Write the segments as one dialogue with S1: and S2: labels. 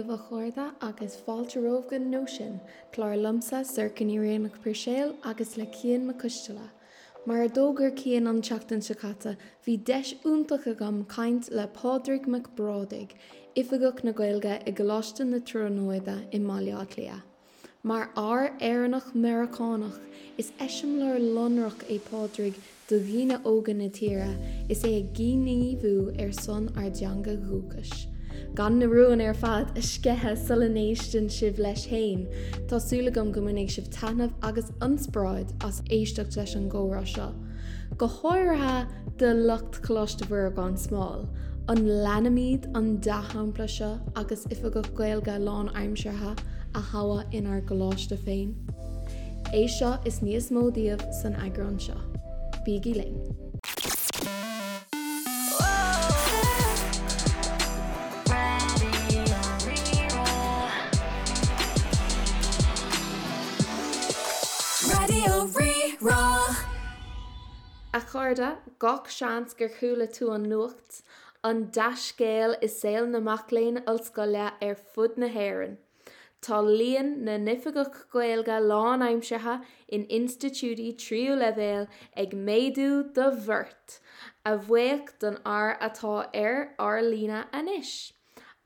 S1: daoibh a chairde agus fáilte romhaibh go Nóisean, clár liomsa, Sorcha Ní Bhraonáin Puirséil agus le Cian Mac Coisteala. Mar a d'fhógair Cian an tseachtain seo caite, bhí deis iontach agam caint le Pádraig Mac Brádaigh, Oifigeach na Gaeilge i gColáiste na Tríonóide i mBaile Átha Cliath. Mar fhear Éireannach-Meiriceánach, is eiseamláir lonrach é Pádraig do dhaoine óga na tíre is é ag gníomhú ar son ár dteanga dhúchais. Gan na rúin ar fad a sceitheadh sula n-éisteann sibh leis féin, tá súil agam go mbainfidh sibh taitneamh agus ionspráid as éisteacht leis an gcomhrá seo. Go háirithe do lucht Choláiste Mhuire gan Smál, an leanfaimid an dea-shampla seo agus Oifigeach Gaeilge lánaimseartha a thoghadh inár gcoláiste féin? É seo is níos mó daoibh san eagrán seo. Bígí linn!
S2: Raidió Rí-Rá.
S1: A chairde, gach seans gur chuala tú an nuacht, an dea-scéal i saol na mac léinn ollscoile ar fud na hÉireann. Tá líon na n-oifigeach Gaeilge lánaimseartha in institiúidí tríú leibhéal ag méadú de bheart, a bhuíoch don fhear atá ar ár líne anois,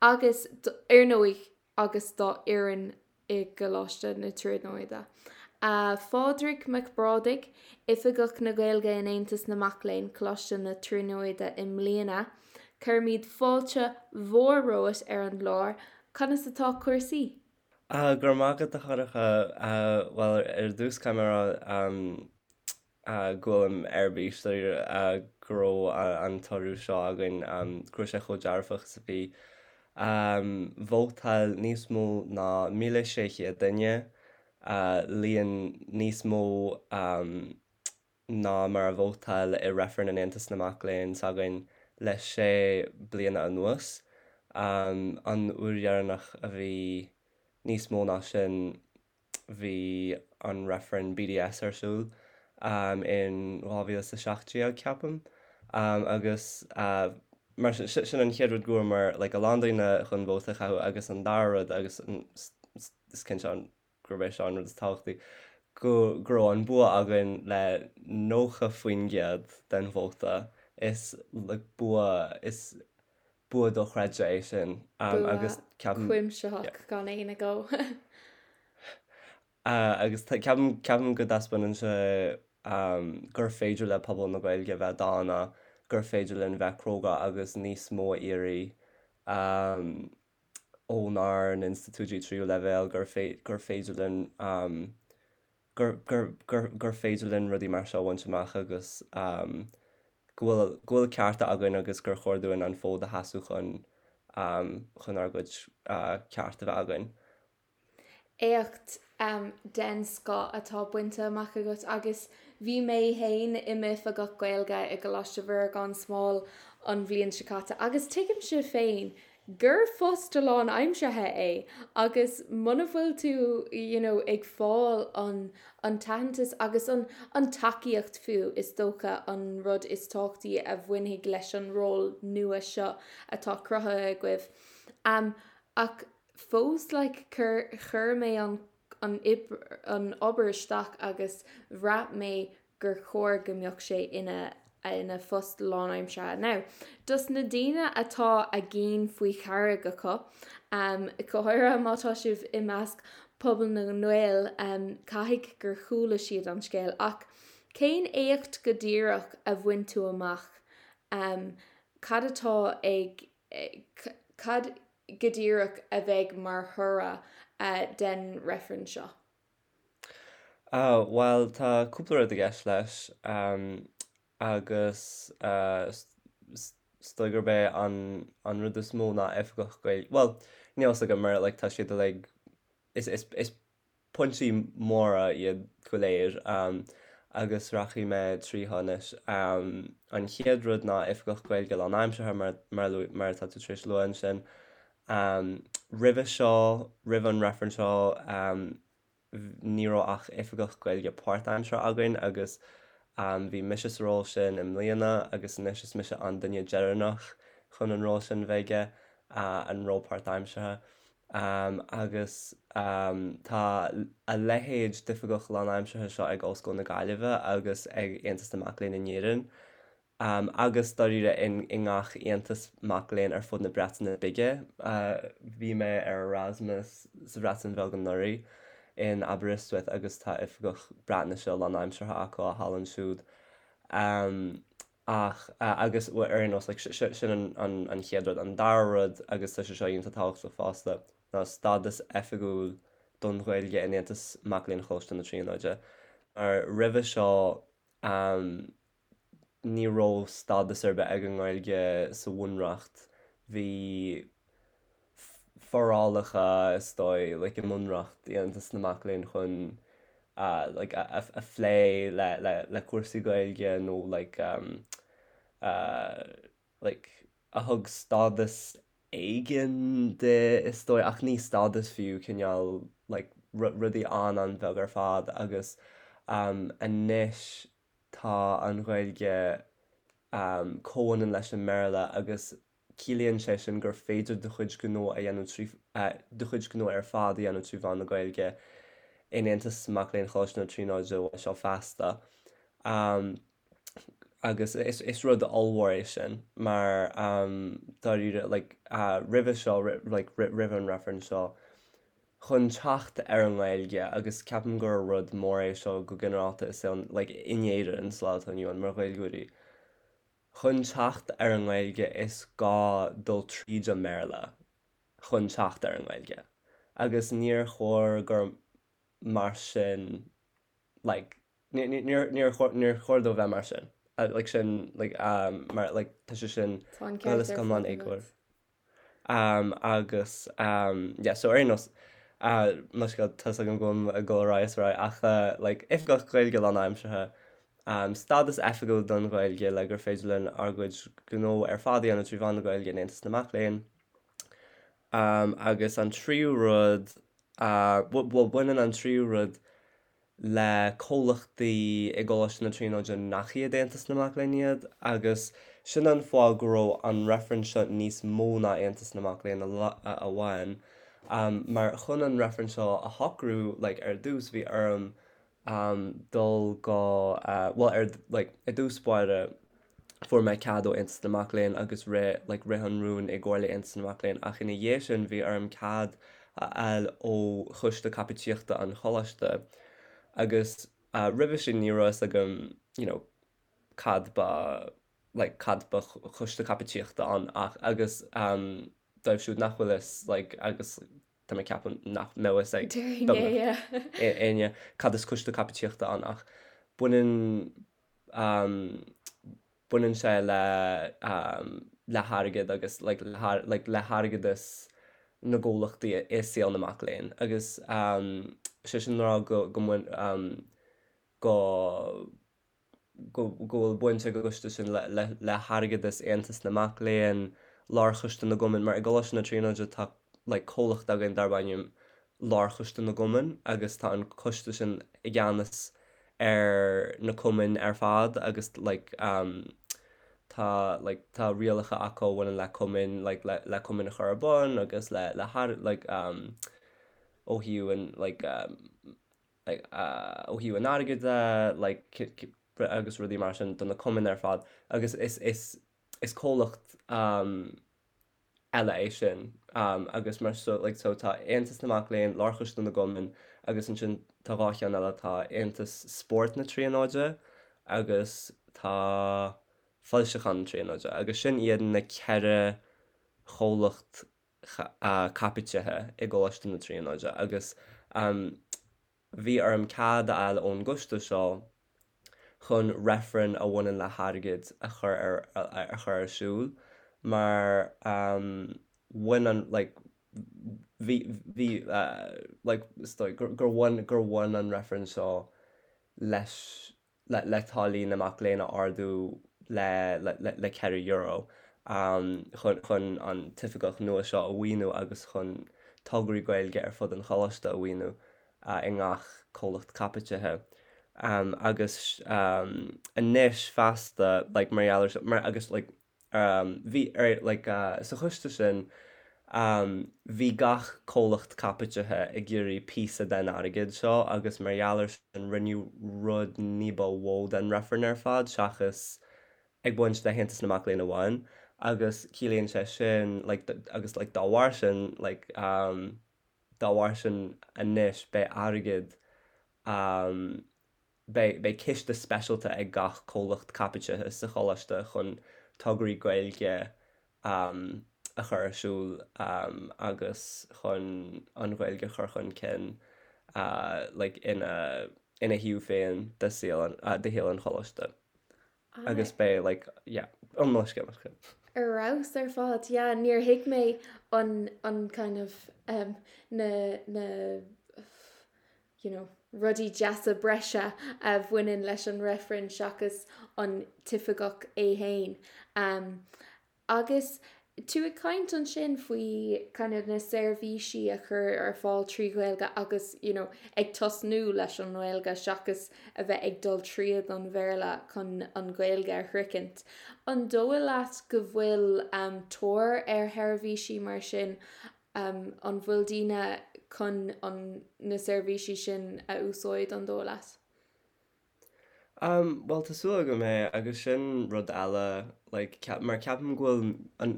S1: agus, ar ndóigh, agus dá fhoireann i gColáiste na Tríonóide. A Phádraig Mac Brádaigh, Oifigeach na Gaeilge in Aontas na Mac Léinn, Coláiste na Tríonóide i mbliana, cuirimid fáilte mhór romhat ar an gclár. Conas atá cúrsaí?
S3: Ah, go raibh maith agat a Shorcha. Bhuel, ar dtús caithfidh mé a rá go bhfuilim ar bís go raibh an toradh seo againn, go raibh sé chomh dearfach is a bhí. Vótáil níos mó ná 1,600 duine, líon níos mó ná mar a vótáil i reifreann in Aontas na Mac Léinn s'againn le sé bliana anuas. An uair dheireanach a bhí níos mó ná sin bhí an reifreann BDS ar siúl in 2017, ceapaim. Agus mar sin, sin an chéad rud go bhfuair like a lán daoine chun vóta a chaitheamh agus an dara rud agus is cinnte an gurb é seo an rud is tábhachtaí, go go raibh an bua againn le 90% den vóta. Is like bua, is bua dochreidte é sin
S1: Bua
S3: agus ceapaim, yeah.
S1: cuimsitheach gan aon agó.
S3: Agus ceapaim, ceapaim go dtaispeánann sé gur féidir le pobal na Gaeilge bheith dána, gur féidir linn bheith cróga agus níos mó a iarraidh. Ónár n-institiúidí tríú leibhéal gur gur féidir linn gur gur gur gur féidir linn rudaí mar seo a bhaint amach agus go bhfuil go bhfuil cearta againn agus gur chóir dúinn an fód a sheasamh chun chun ár gcuid ceart a bheith againn.
S1: Éacht den scoth atá bainte amach agat agus bhí mé féin i m'oifigeach Gaeilge i gColáiste Mhuire gan Smál an bhliain seo caite agus tuigimse féin gur post lánaimseartha é agus muna bhfuil tú you know ag fáil an an t-aitheantas agus an an tacaíocht fiú is dócha an rud is tábhachtaí a bhainfidh leis an ról nua seo atá cruthaithe agaibh. Ach fós like chuir chuir mé an an an obair isteach agus bhraith mé gur chóir go mbeadh sé ina ina phost lánaimseartha. Now, dos na daoine atá a gcinn faoi charraig acu, um, go háirithe má tá sibh i measc pobal na nGael, um, caithfidh gur chuala siad an scéal ach cén éacht go díreach a bhain tú amach? Um, cad atá ag cad go díreach a bheidh mar thoradh den reifreann seo?
S3: Bhuel, tá cúpla rud i gceist leis agus is dóigh gurb é an rud is mó ná oifigeach Gaeilge, bhuel, níl a fhios agam mar like tá siad uilig, is is Pointí móra iad go léir agus rachaidh mé tríothu anois. An chéad rud ná Oifigeach Gaeilge lánaimseartha mar atá tú tar éis lua ansin. Roimhe seo, roimh an reifreann seo, ní raibh ach Oifigeach Gaeilge páirtaimseartha againn agus bhí mise sa ról sin i mbliana agus anois is mise an duine deireanach chun an ról sin bheith aige, an ról páirtaimseartha. Agus tá a leithéid d'oifigeach lánaimseartha seo ag Ollscoil na Gaillimhe agus ag Aontas na Mac Léinn in Éirinn, agus dáiríre i ngach aontas mac léinn ar fud na Breataine Bige. Bhí mé ar Erasmus sa Bhreatain Bheag anuraidh, in Aberystwyth, agus tá oifigeach Breatnaise lánaimseartha acu thall ansiúd. Ach, agus ar aon nós, like, sin an chéad rud. An dara rud, agus tá sé seo iontach tábhachtach fosta, ná stádas oifigiúil don Ghaeilge in Aontas Mac Léinn Choláiste na Tríonóide. Mar roimhe seo, ní raibh stádas ar bith ag an nGaeilge sa Bhunreacht. Bhí forálacha, is dóigh, like i mBunreacht Aontas na Mac Léinn chun like a phlé le le le cúrsaí Gaeilge nó like like a thug stádas éigin di is dóigh ach ní stádas fiú cineál like rudaí an-an-bheag ar fad agus anois tá an Ghaeilge comhionann leis an mBéarla agus Ciallaíonn sé sin gur féidir do chuid gnó a dhéanamh trí do chuid gnó ar fad a dhéanamh trí mheán na Gaeilge in Aontas Mac Léinn Choláiste na Tríonóide uaidh seo feasta. Agus is rud ollmhór é sin mar dáiríre like roimhe seo like roimh an reifreann seo chun teacht ar an nGaeilge agus ceapaim gur rud mór é seo go ginearálta i saol like in Éirinn sa lá atá inniu ann mar Ghaeilgeoirí. Chun teacht ar an nGaeilge is gá dul tríd an mBéarla chun teacht ar an nGaeilge agus níor chóir gur mar sin like níor níor níor chóir dó bheith mar sin like sin like mar like tá sé sin
S1: Tá an ceart ar fad agat.
S3: Agus yeah so ar aon nós mo scéal tá's agam go bhfuil ag dul ar aghaidh is ar aghaidh ach like oifigeach Gaeilge lánaimseartha, stádas oifigiúil don Ghaeilge le gur féidir linn ár gcuid gnó ar fad a dhéanamh trí mheán na Gaeilge in Aontas na Mac Léinn. Agus an tríú rud, bhuel baineann an tríú rud le comhlachtaí i gColáiste na Tríonóide nach iad Aontas na Mac Léinn iad, agus sin an fáth go raibh an reifreann seo níos mó ná Aontas na Mac Léinn amháin, mar chun an reifreann seo a shocrú, like, ar dtús bhí orm dul go, bhuel, ar, like, i dtús báire, fuair mé cead ó Aontas na Mac Léinn agus rith, like, rith an rún i gComhairle Aontas na Mac Léinn ach ina dhiaidh sin bhí orm cead a fháil ó Choiste Caipitíochta an Choláiste agus roimhe sin ní raibh fhios agam you know cad ba like cad ba Choiste Caipitíochta ann ach agus um dóibh siúd nach bhfuil fhios like agus tá mé ag ceapadh nach mbeadh fhios ag
S1: beagnach
S3: éinne cad is Coiste Caipitíochta ann ach baineann baineann sé le le hairgead agus like like le hairgeadas na gcomhlachtaí i saol na mac léinn agus sé sin le rá go go mbain go go bhfuil baint ag an gcoiste sin le hairgeadas Aontas na Mac Léinn, Lárchoiste na gCumann, mar i gColáiste na Tríonóide tá like comhlacht againn darb ainm Lárchoiste na gCumann agus tá an coiste sin i gceannas ar na cumainn ar fad agus like tá like tá rialacha acu a bhaineann le cumainn like le le cumainn a chur ar bun agus le le like ó thaobh an like like ó thaobh an airgid de like agus rudaí mar sin do na cumainn ar fad agus is is is comhlacht eile é sin agus mar so like so tá Aontas na Mac Léinn, Lárchoiste na gCumann agus ansin tá 2 cheann eile, tá Aontas Spóirt na Tríonóide agus tá Foilseacháin na Tríonóide agus sin iad na ceithre chomhlacht caipitithe i gColáiste na Tríonóide agus bhí orm cead a fháil ón gcoiste seo chun reifreann a bhaineann le hairgead a chur ar a chur ar siúl mar bhain an like bhí bhí like is dóigh gur gur bhain gur bhain an reifreann seo leis le le táillí na mac léinn a ardú le le le €4 chun chun an t-oifigeach nua seo a mhaoiniú agus chun tograí Gaeilge ar fud an choláiste a mhaoiniú i ngach comhlacht caipitithe. Agus anois feasta, like, mar gheall ar, mar, agus like, bhí ar, like, sa choiste sin. Bhí gach comhlacht caipitithe ag iarraidh píosa den airgead seo agus mar gheall ar sin rinneadh rud ní ba mhó den reifreann ar fad seachas ag baint le hAontas na Mac Léinn amháin agus ciallaíonn sé sin like agus like dá bharr sin like dá bharr sin anois beidh airgead Beidh beidh ciste speisialta ag gach comhlacht caipitithe sa choláiste chun tograí Gaeilge a chur ar siúl agus chun an Ghaeilge a chur chun cinn like ina ina thaobh féin de saol de shaol an choláiste. Agus beidh like yeah an mo scéal mo
S1: scéal. Ar fheabhas ar fad, yeah níor thuig mé an an kind of um, na na you know, rudaí deasa breise a bhaineann leis an reifreann seachas an t-oifigeach é fhéin. Um, agus tú ag caint ansin faoi kind of na seirbhísí a chur ar fáil trí Ghaeilge agus you know, ag tosnú leis an nGaeilge seachas a bheith ag dul tríd an Bhéarla chun an Ghaeilge a shroichint. An dóigh leat go bhfuil um, tóir ar sheirbhísí mar sin An bhfuil daoine chun an na seirbhísí sin a úsáid, an dóigh leat?
S3: Bhuel, tá súil agam é, agus sin rud eile, like, mar ceapaim go bhfuil an,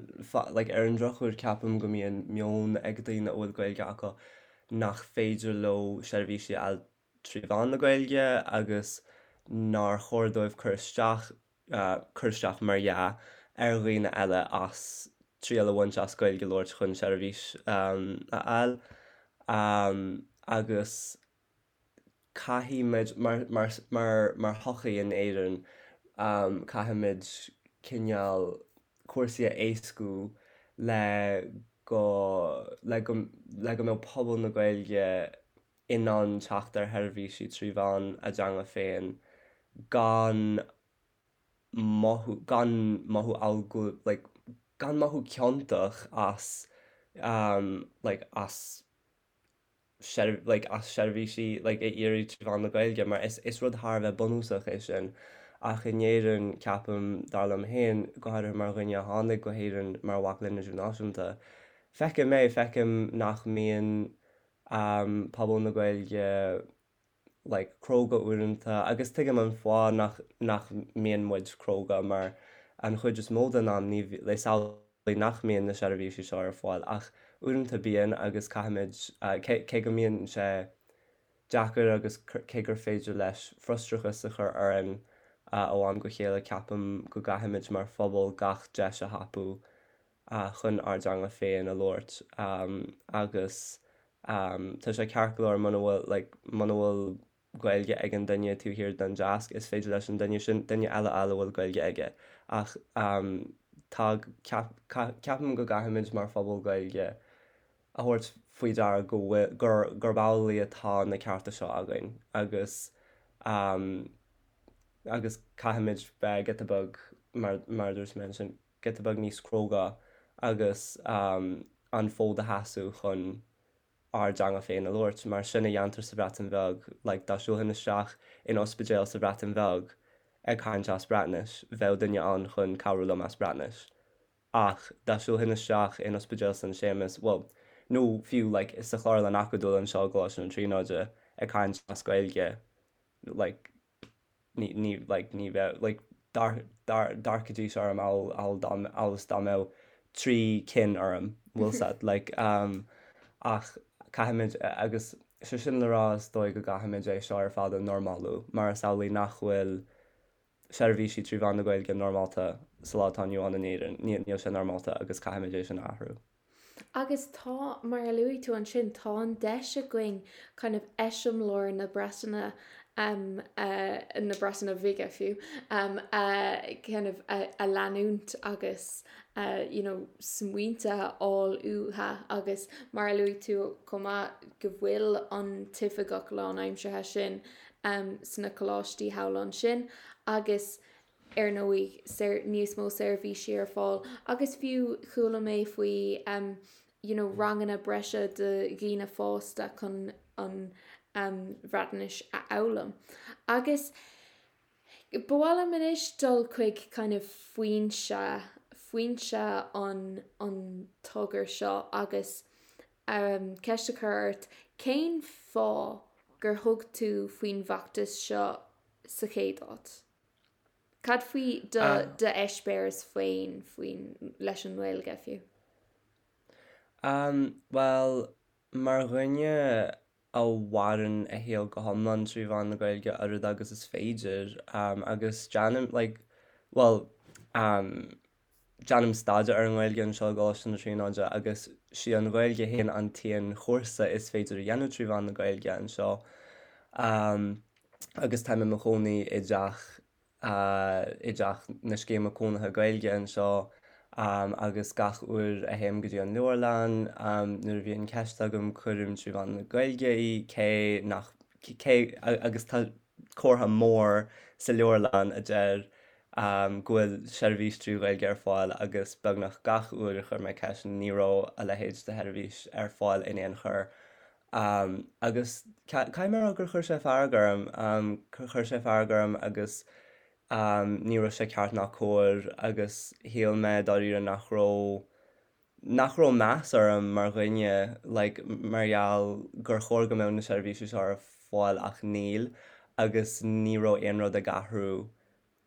S3: like, ar an drochuair ceapaim go mbíonn meon ag daoine a bhfuil Gaeilge acu nach féidir leo seirbhísí a fháil trí mheán na Gaeilge agus nár chóir dóibh cur isteach, cur isteach mar dhea, ar dhaoine eile as triail a bhaint as Gaeilge a labhairt chun seirbhís a fháil. Agus caithfimid, mar, mar, mar, mar shochaí in Éirinn, caithfimid cineál cúrsaí a éascú le go, le go, le go mbeadh pobal na Gaeilge in ann teacht ar sheirbhísí trí mheán a dteanga féin gan mothú, gan mothú amhail go, like, gan mothú ciontach as like as like as seirbhísí like a iarraidh trí mheán na Gaeilge mar is, is rud thar a bheith bunúsach é sin. Ach in Éirinn, ceapaim, dar liom féin, go háirithe mar dhuine a tháinig go hÉirinn mar mhac léinn idirnáisiúnta, feicim é, feicim nach mbíonn pobal na Gaeilge like cróga uaireanta agus tuigim an fáth nach nach mbíonn muid cróga mar an chuid is mó den am ní is amhlaidh nach mbíonn na seirbhísí seo ar fáil ach uaireanta bíonn agus caithfimid cé cé go mbíonn sé deacair agus cé gur féidir leis frustrachas a chur orainn ó am go chéile ceapaim go gcaithfimid mar phobal gach deis a thapú chun ár dteanga féin a labhairt agus tá sé ceart go leor muna bhfuil like muna bhfuil Gaeilge ag an duine taobh thiar den deasc is féidir leis an duine sin duine eile a fháil a bhfuil Gaeilge aige ach tá ceapaim go gcaithfimid mar phobal Gaeilge a thabhairt faoi deara go bhfuil gur gurb amhlaidh atá na cearta seo againn agus agus caithfimid bheith giota beag mar mar a dúirt mé ansin giota beag níos cróga agus an fód a sheasamh chun ár dteanga féin a labhairt, mar sin a dhéantar sa Bhreatain Bheag, like dá siúlfainn isteach in ospidéal sa Bhreatain Bheag ag caint as Breatnais, bheadh duine ann chun cabhrú liom as Breatnais. Ach dá siúlfainn isteach in ospidéal San Séamas, bhuel, nó fiú like sa Chlárlann Acadúil anseo i gColáiste na Tríonóide ag caint as Gaeilge, like ní, ní, like, ní bheadh, like, d'amharcfaidís orm amhail, amhail dá, amhail is dá mbeadh trí cinn orm, bhfuil 's a'd, like, um, ach caithfimid, agus sé sin le rá is dóigh go gcaithfimid é seo ar fad a normalú, mar is amhlaidh nach bhfuil seirbhísí trí mheán na Gaeilge normálta sa lá atá inniu ann in Éirinn, níl sé normálta agus caithfimid é sin a athrú.
S1: Agus tá, mar a luaigh tú ansin, tá an deis againn kind of eiseamláir na Breataine, na Breataine Bhige fiú, a kind of a leanúint agus you know smaointe a fháil uathu agus mar a luaigh tú chomh maith go bhfuil an t-oifigeach lánaimseartha sin sna coláistí thall ansin agus ar ndóigh, níos mó seirbhísí ar fáil agus fiú chuala mé faoi you know ranganna breise do dhaoine fásta chun an Bhreatnais a fhoghlaim. Agus ba mhaith liom anois dul chuig kind of foinse, foinse an an. togra seo agus ceist a chur ort, cén fáth gur thug tú faoin bhfeachtas seo sa chéad áit? Cad faoi do d'eispéireas féin faoin leis an nGaeilge fiú?
S3: Bhuel, mar dhuine a mhaireann a shaol go hiomlán trí mheán na Gaeilge oiread agus is féidir, agus déanaim, like, bhuel, déanaim staidéar ar an nGaeilge anseo i gColáiste na Tríonóide agus sí an Ghaeilge féin an t-aon chúrsa is féidir a dhéanamh trí mheán na Gaeilge anseo. Agus táim i mo chónaí i dteach i dteach na scéime cónaithe Gaeilge anseo agus gach uair a théim go dtí an leabharlann nuair a bhíonn ceist agam cuirim trí mheán na Gaeilge í cé nach cé agus tá comhartha mór sa leabharlann a deir go bhfuil seirbhís trí Ghaeilge ar fáil agus beagnach gach uair a chuir mé ceist ní raibh a leithéid de sheirbhís ar fáil in aon chor. Agus caithfidh mé a rá gur chuir sé fearg orm, chuir sé fearg orm agus ní raibh sé ceart ná cóir agus shíl mé dáiríre nach raibh, nach raibh meas orm mar dhuine like mar gheall gur chóir go mbeadh na seirbhísí seo ar fáil ach níl agus ní raibh aon rud ag athrú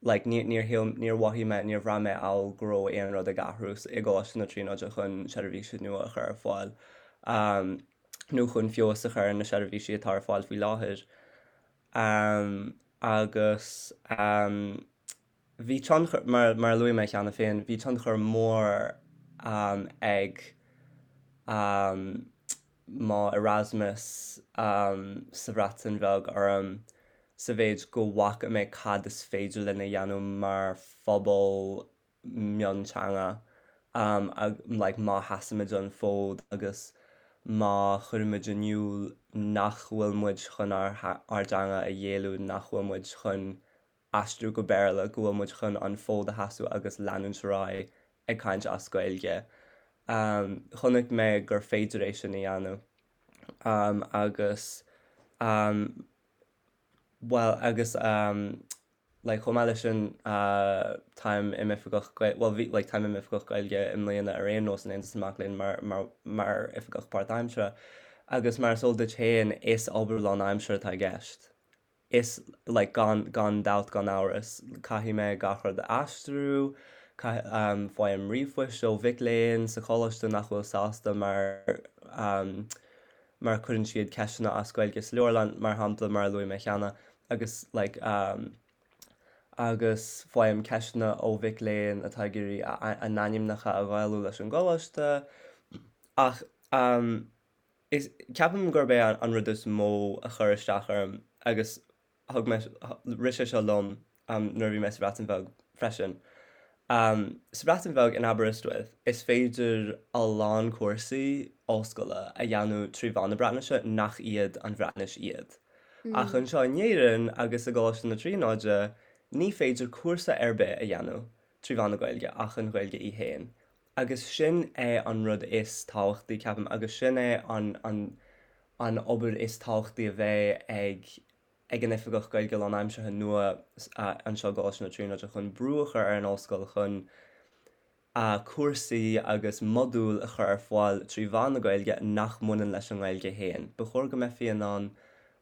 S3: like ní, níor shíl, níor mhothaigh mé, níor bhraith mé amhail go raibh aon rud ag athrú i gColáiste na Tríonóide chun seirbhísí nua a chur ar fáil nó chun feabhas a chur ar na seirbhísí atá ar fáil faoi láthair. Agus bhí tionchar, mar, mar a luaigh mé cheana féin, bhí tionchar mór ag mo Erasmus sa Bhreatain Bheag orm sa mhéid go bhfaca mé cad is féidir linn a dhéanamh mar phobal mionteanga like má sheasaimid an fód agus má chuirimid in iúl nach bhfuil muid chun ár ár dteanga a ghéilleadh, nach bhfuil muid chun aistriú go Béarla, go bhfuil muid chun an fód a sheasamh agus leanúint ar aghaidh ag caint as Gaeilge. Chonaic mé gur féidir é sin a dhéanamh agus bhuel agus like chomh maith leis sin táim i m'oifigeach bhuel bhí like táim i m'oifigeach Gaeilge i mbliana ar aon nós in Aontas na Mac Léinn mar mar mar oifigeach páirtaimseartha agus mar is eol duit féin is obair lánaimseartha atá i gceist. Is, like, gan, gan dabht, gan amhras, caithfidh mé gach rud a aistriú, caith, faighim ríomhphoist ó mhic léinn sa choláiste nach bhfuil sásta mar, mar cuireann siad ceisteanna as Gaeilge sa leabharlann, mar shampla, mar a luaigh mé cheana, agus, like, agus faighim ceisteanna ó mhic léinn atá ag iarraidh a, a n-ainmneacha a Ghaelú leis an gcoláiste, ach, Is, ceapaim gurb é an rud is mó a chuir isteach orm agus thug mé, rith sé seo liom nuair a bhí mé sa Bhreatain Bheag freisin. Sa Bhreatain Bheag, in Aberystwyth, is féidir a lán cúrsaí ollscoile a dhéanamh trí mheán na Breatnaise nach iad an Bhreatnais iad. Ach anseo in Éirinn agus i gColáiste na Tríonóide, ní féidir cúrsa ar bith a dhéanamh trí mheán na Gaeilge ach an Ghaeilge í féin. Agus sin é an rud is tábhachtaí, ceapaim, agus sin é an, an, an obair is tábhachtaí a bheidh ag, ag an Oifigeach Gaeilge lánaimseartha nua anseo i gColáiste na Tríonóide chun brú a chur ar an ollscoil chun cúrsaí agus modúil a chur ar fáil trí mheán na Gaeilge nach mbaineann leis an nGaeilge féin. Ba chóir go mbeifí in ann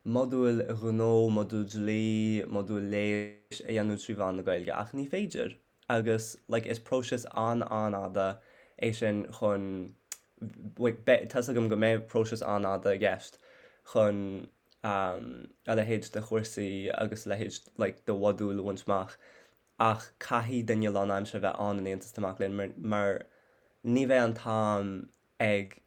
S3: modúil ghnó, modúil dlí, modúil leighis a dhéanamh trí mheán na Gaeilge ach ní féidir. agus like is próiseas an-an-fhada é sin chun like beidh, tá's agam go mbeidh próiseas an-fhada i gceist chun a leithéid de chúrsaí agus a leithéid like de mhodúil a bhaint amach ach caithfidh duine lánaimseartha bheith ann in Aontas na Mac Léinn mar mar ní bheidh an t-am ag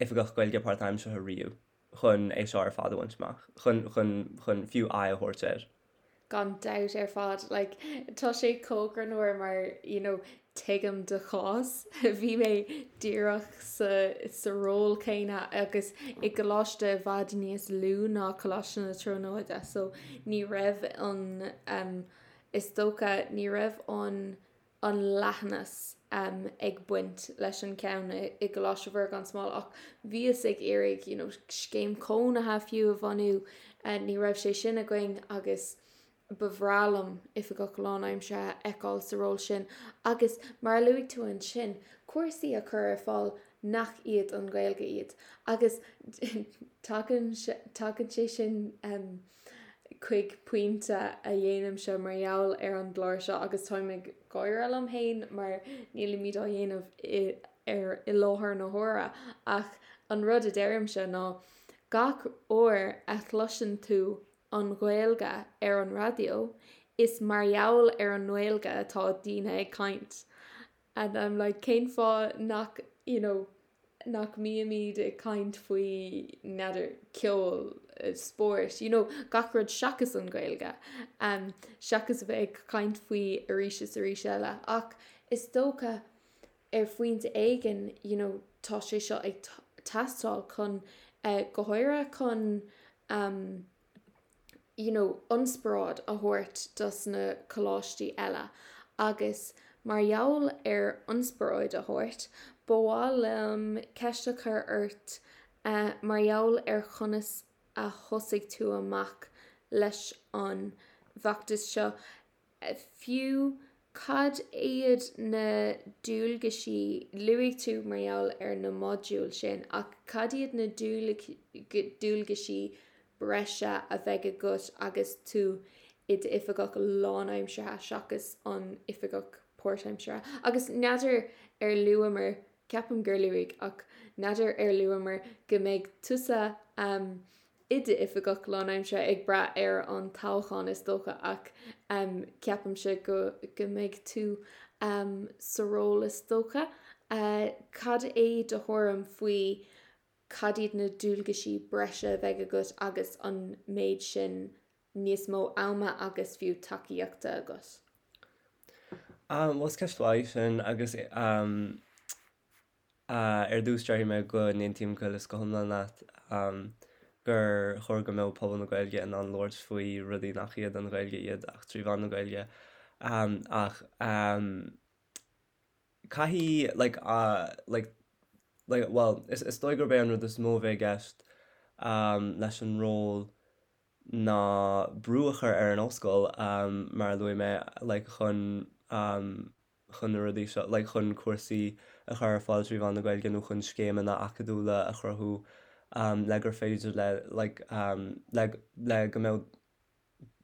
S3: oifigeach Gaeilge páirtaimseartha riamh. chun é seo ar fad a bhaint amach, chun, chun, chun fiú aghaidh a thabhairt air.
S1: Gan dabht ar fad. Like, tá sé chomh greannmhar mar, you know, tuigim do chás. Bhí mé díreach sa, sa ról céanna agus i gcoláiste i bhfad níos lú ná Coláiste na Tríonóide so ní raibh an, um, is dócha, ní raibh an, an leathnas ag baint leis an ceann i gColáiste Mhuire gan Smál ach bhíothas ag iarraidh you know scéim cónaithe fiú a bhunú, ní raibh sé sin againn agus ba bhreá liom oifigeach lánaimseartha a fheiceáil sa ról sin agus mar a luaigh tú ansin, cúrsaí a chur ar fáil. nach iad an Ghaeilge iad. Agus tagann tagann sé sin chuig pointe a dhéanaimse mar gheall ar an gclár seo agus táim ag gáire liom féin mar nílimid á dhéanamh i ar i láthair na huaire ach an rud a deirimse ná gach uair a chloiseann tú an Ghaeilge ar an raidió is mar gheall ar an nGaeilge atá daoine ag caint and I'm like cén fáth nach you know nach mbímid ag caint faoi n'fheadar ceol, spórt, you know gach rud seachas an Ghaeilge um seachas a bheith ag caint faoi arís is arís eile ach is dócha ar phointe éigin you know tá sé seo ag teastáil chun eh go háirithe chun um you know ionspioráid a thabhairt dos na coláistí eile agus mar gheall ar ionspioráid a thabhairt ba mhaith liom ceist a chur ort eh mar gheall ar chonas a thosaigh tú amach leis an bhfeachtas seo. Fiú, cad iad na dualgaisí, luaigh tú mar gheall ar na modúil sin, ach cad iad na dualgaisí breise a bheidh agat agus tú i d'oifigeach lánaimseartha seachas an oifigeach páirtaimseartha? Agus n'fheadar ar luamar, ceapaim gur luaigh, ach n'fheadar ar luamar go mbeidh tusa i d'oifigeach lánaimseartha ag brath ar an toghchán is dócha ach ceapaimse go go mbeidh tú sa ról is dócha. Cad é do thuairim faoi cad iad na dualgaisí breise a bheidh agat agus an méid sin níos mó ama agus fiú tacaíochta agat?
S3: Bhuel is ceist mhaith í sin agus Ar dtús, déarfaidh mé go n-aontaím go huile is go hiomlán leat gur chóir go mbeadh pobal na Gaeilge in ann labhairt faoi rudaí nach iad an Ghaeilge iad ach trí mheán na Gaeilge. Ach caithfidh, like, like, like, bhuel, is dóigh gurb é an rud is mó a bheidh i gceist leis an ról ná brú a chur ar an ollscoil, mar a luaigh mé, like, chun chun na rudaí seo, like chun cúrsaí a chur ar fáil trí mheán na Gaeilge nó chun scéimeanna acadúla a chruthú le gur féidir le like le le go mbeadh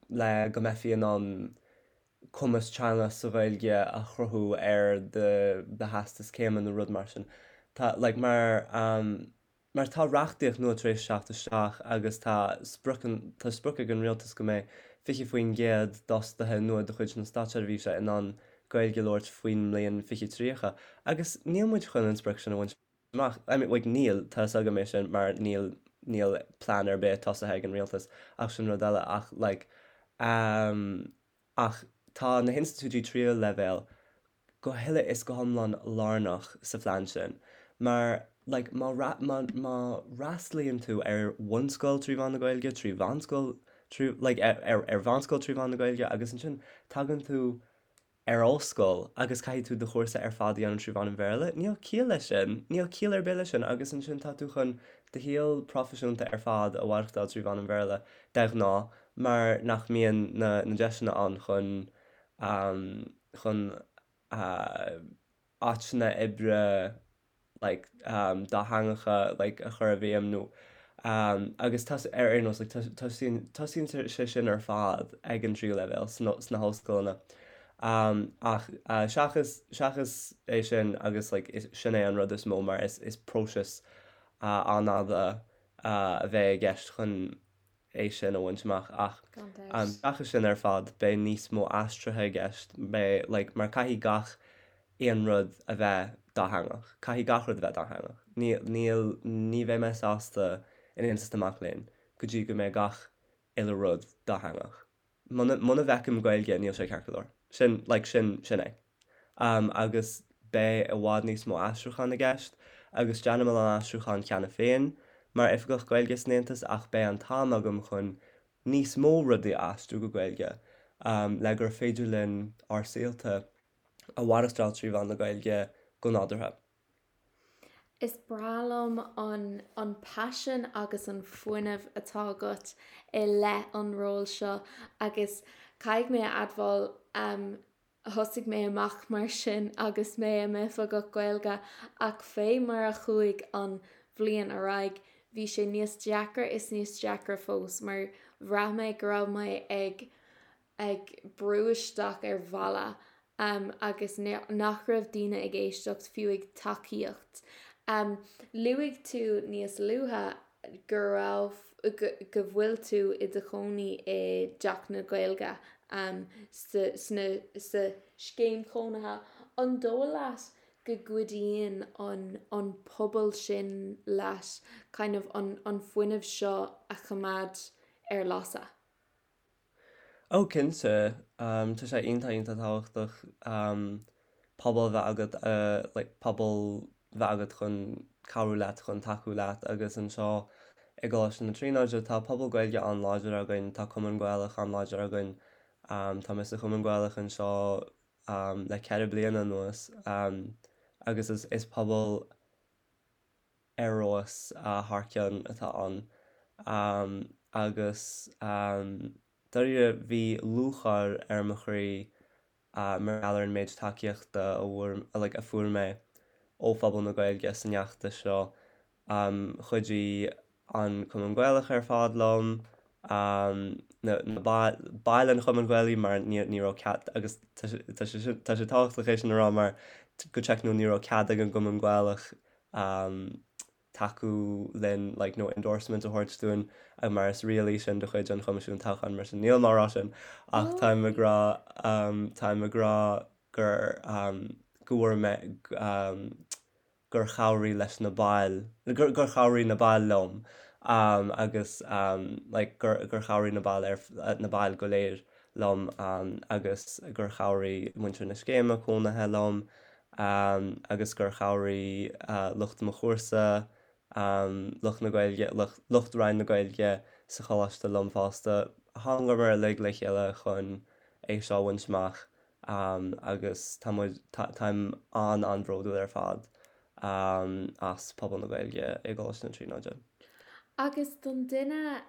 S3: le go mbeifí in ann cumas teanga sa Ghaeilge a chruthú ar do do theastas céime nó rud mar sin. Tá like mar Mar tá reachtaíocht nua tar éis teacht isteach agus tá sprioc tá sprioc ag an rialtas go mbeidh 20% d'fhostaithe nua de chuid na státseirbhíse in ann Gaeilge a labhairt faoin mbliain 2030 agus níl muid chun an sprioc sin a bhaint amach. I mean, like, níl, tá fhios agam é sin mar níl níl plean ar bith tosaithe ag an rialtas ach sin rud eile ach like um, ach tá na hinstitiúidí tríú leibhéal go huile is go hiomlán lárnach sa phlean sin mar like má má má fhreastalaíonn tú ar bhunscoil trí mheán na Gaeilge, trí mheánscoil trí like ar ar ar mheánscoil trí mheán na Gaeilge agus ansin tagann tú ar ollscoil agus caithfidh tú do chúrsa ar fad a dhéanamh trí mheán an Bhéarla, níl ciall leis sin, níl ciall ar bith leis sin agus ansin tá tú chun do shaol proifisiúnta ar fad a mhaireachtáil trí mheán an Bhéarla de ghnáth mar nach mbíonn na na deiseanna ann chun chun áiteanna oibre like dátheangacha like a chur i bhfeidhm nó agus tá ar aon nós like tosaíonn tosaíonn sé sin ar fad ag an tríú leibhéal sna sna hollscoileanna ach seachas seachas é sin agus like sin é an rud is mó mar is is próiseas an-fhada a bheidh i gceist chun é sin a bhaint amach ach seachas sin ar fad beidh níos mó aistrithe i gceist, beidh like mar caithfidh gach aon rud a bheith dátheangach, caithfidh gach rud a bheith dátheangach. Níl, níl, ní bheidh mé sásta in Aontas na Mac Léinn go dtí go mbeidh gach uile rud dátheangach. Muna, muna bhfeicim Gaeilge níl sé ceart go leor. Sin, like, sin, sin é. Agus beidh i bhfad níos mó aistriúchán i gceist agus déanaim a lán aistriúchán cheana féin mar Oifigeach Gaeilge san Aontas ach beidh an t-am agam chun níos mó rudaí a aistriú go Gaeilge le gur féidir linn ár saolta a mhaireachtáil trí mheán na Gaeilge go nádúrtha.
S1: Is breá liom an an paisean agus an fuinneamh atá agat i leith an róil seo agus caithfidh mé a admháil. Thosaigh mé amach mar sin agus mé i m'oifigeach Gaeilge ach fé mar a chuaigh an bhliain ar aghaidh bhí sé níos deacra is níos deacra fós mar bhraith mé go raibh mé ag ag brú isteach ar bhalla agus nach raibh daoine ag éisteacht fiú ag tacaíocht. Luaigh tú níos luaithe go raibh, go bhfuil tú i do chónaí i dTeach na Gaeilge sa, sna, sa scéim chónaithe. An dóigh leat go gcuidíonn an, an pobal sin leat kind of an, an fuinneamh seo a choimeád ar lasadh?
S3: Ó cinnte, tá sé iontach iontach tábhachtach pobal a bheith agat like pobal bheith agat chun cabhrú leat, chun tacú leat agus anseo i gColáiste na Tríonóide tá pobal Gaeilge an-láidir againn, tá Cumann Gaelach an-láidir againn, tá mé sa Chumann Gaelach anseo le 4 bliana anuas agus is pobal ar fheabhas thar cionn atá ann agus dáiríre bhí lúcháir ar mo chroí mar gheall ar an méid tacaíochta a bhfuair like a fuair mé ó phobal na Gaeilge san fheachtas seo. Chuidigh an Cumann Gaelach ar fad liom, na baill an Chumainn Ghaelaigh mar ní raibh cead, agus tá sé tá sé tábhachtach é sin a rá mar go teicniúil ní raibh cead ag an gCumann Gaelach tacú linn like nó endorsement a thabhairt dúinn mar is riail í sin de chuid an Choimisiúin Toghcháin mar sin nílim á rá sin ach táim ag rá táim ag rá gur go bhfuair mé gur chabhraigh leis na baill, gur chabhraigh na baill liom agus like gur gur chabhraigh na baill ar na baill go léir liom agus gur chabhraigh muintir na scéime cónaithe liom agus gur chabhraigh lucht mo chúrsa, lucht na Gaeilge, lucht Roinn na Gaeilge sa choláiste liom fosta. Thángamar uilig le chéile chun é seo a bhaint amach agus tá muid, táim an-an-bhródúil ar fad as pobal na Gaeilge i gColáiste na Tríonóide.
S1: Agus don duine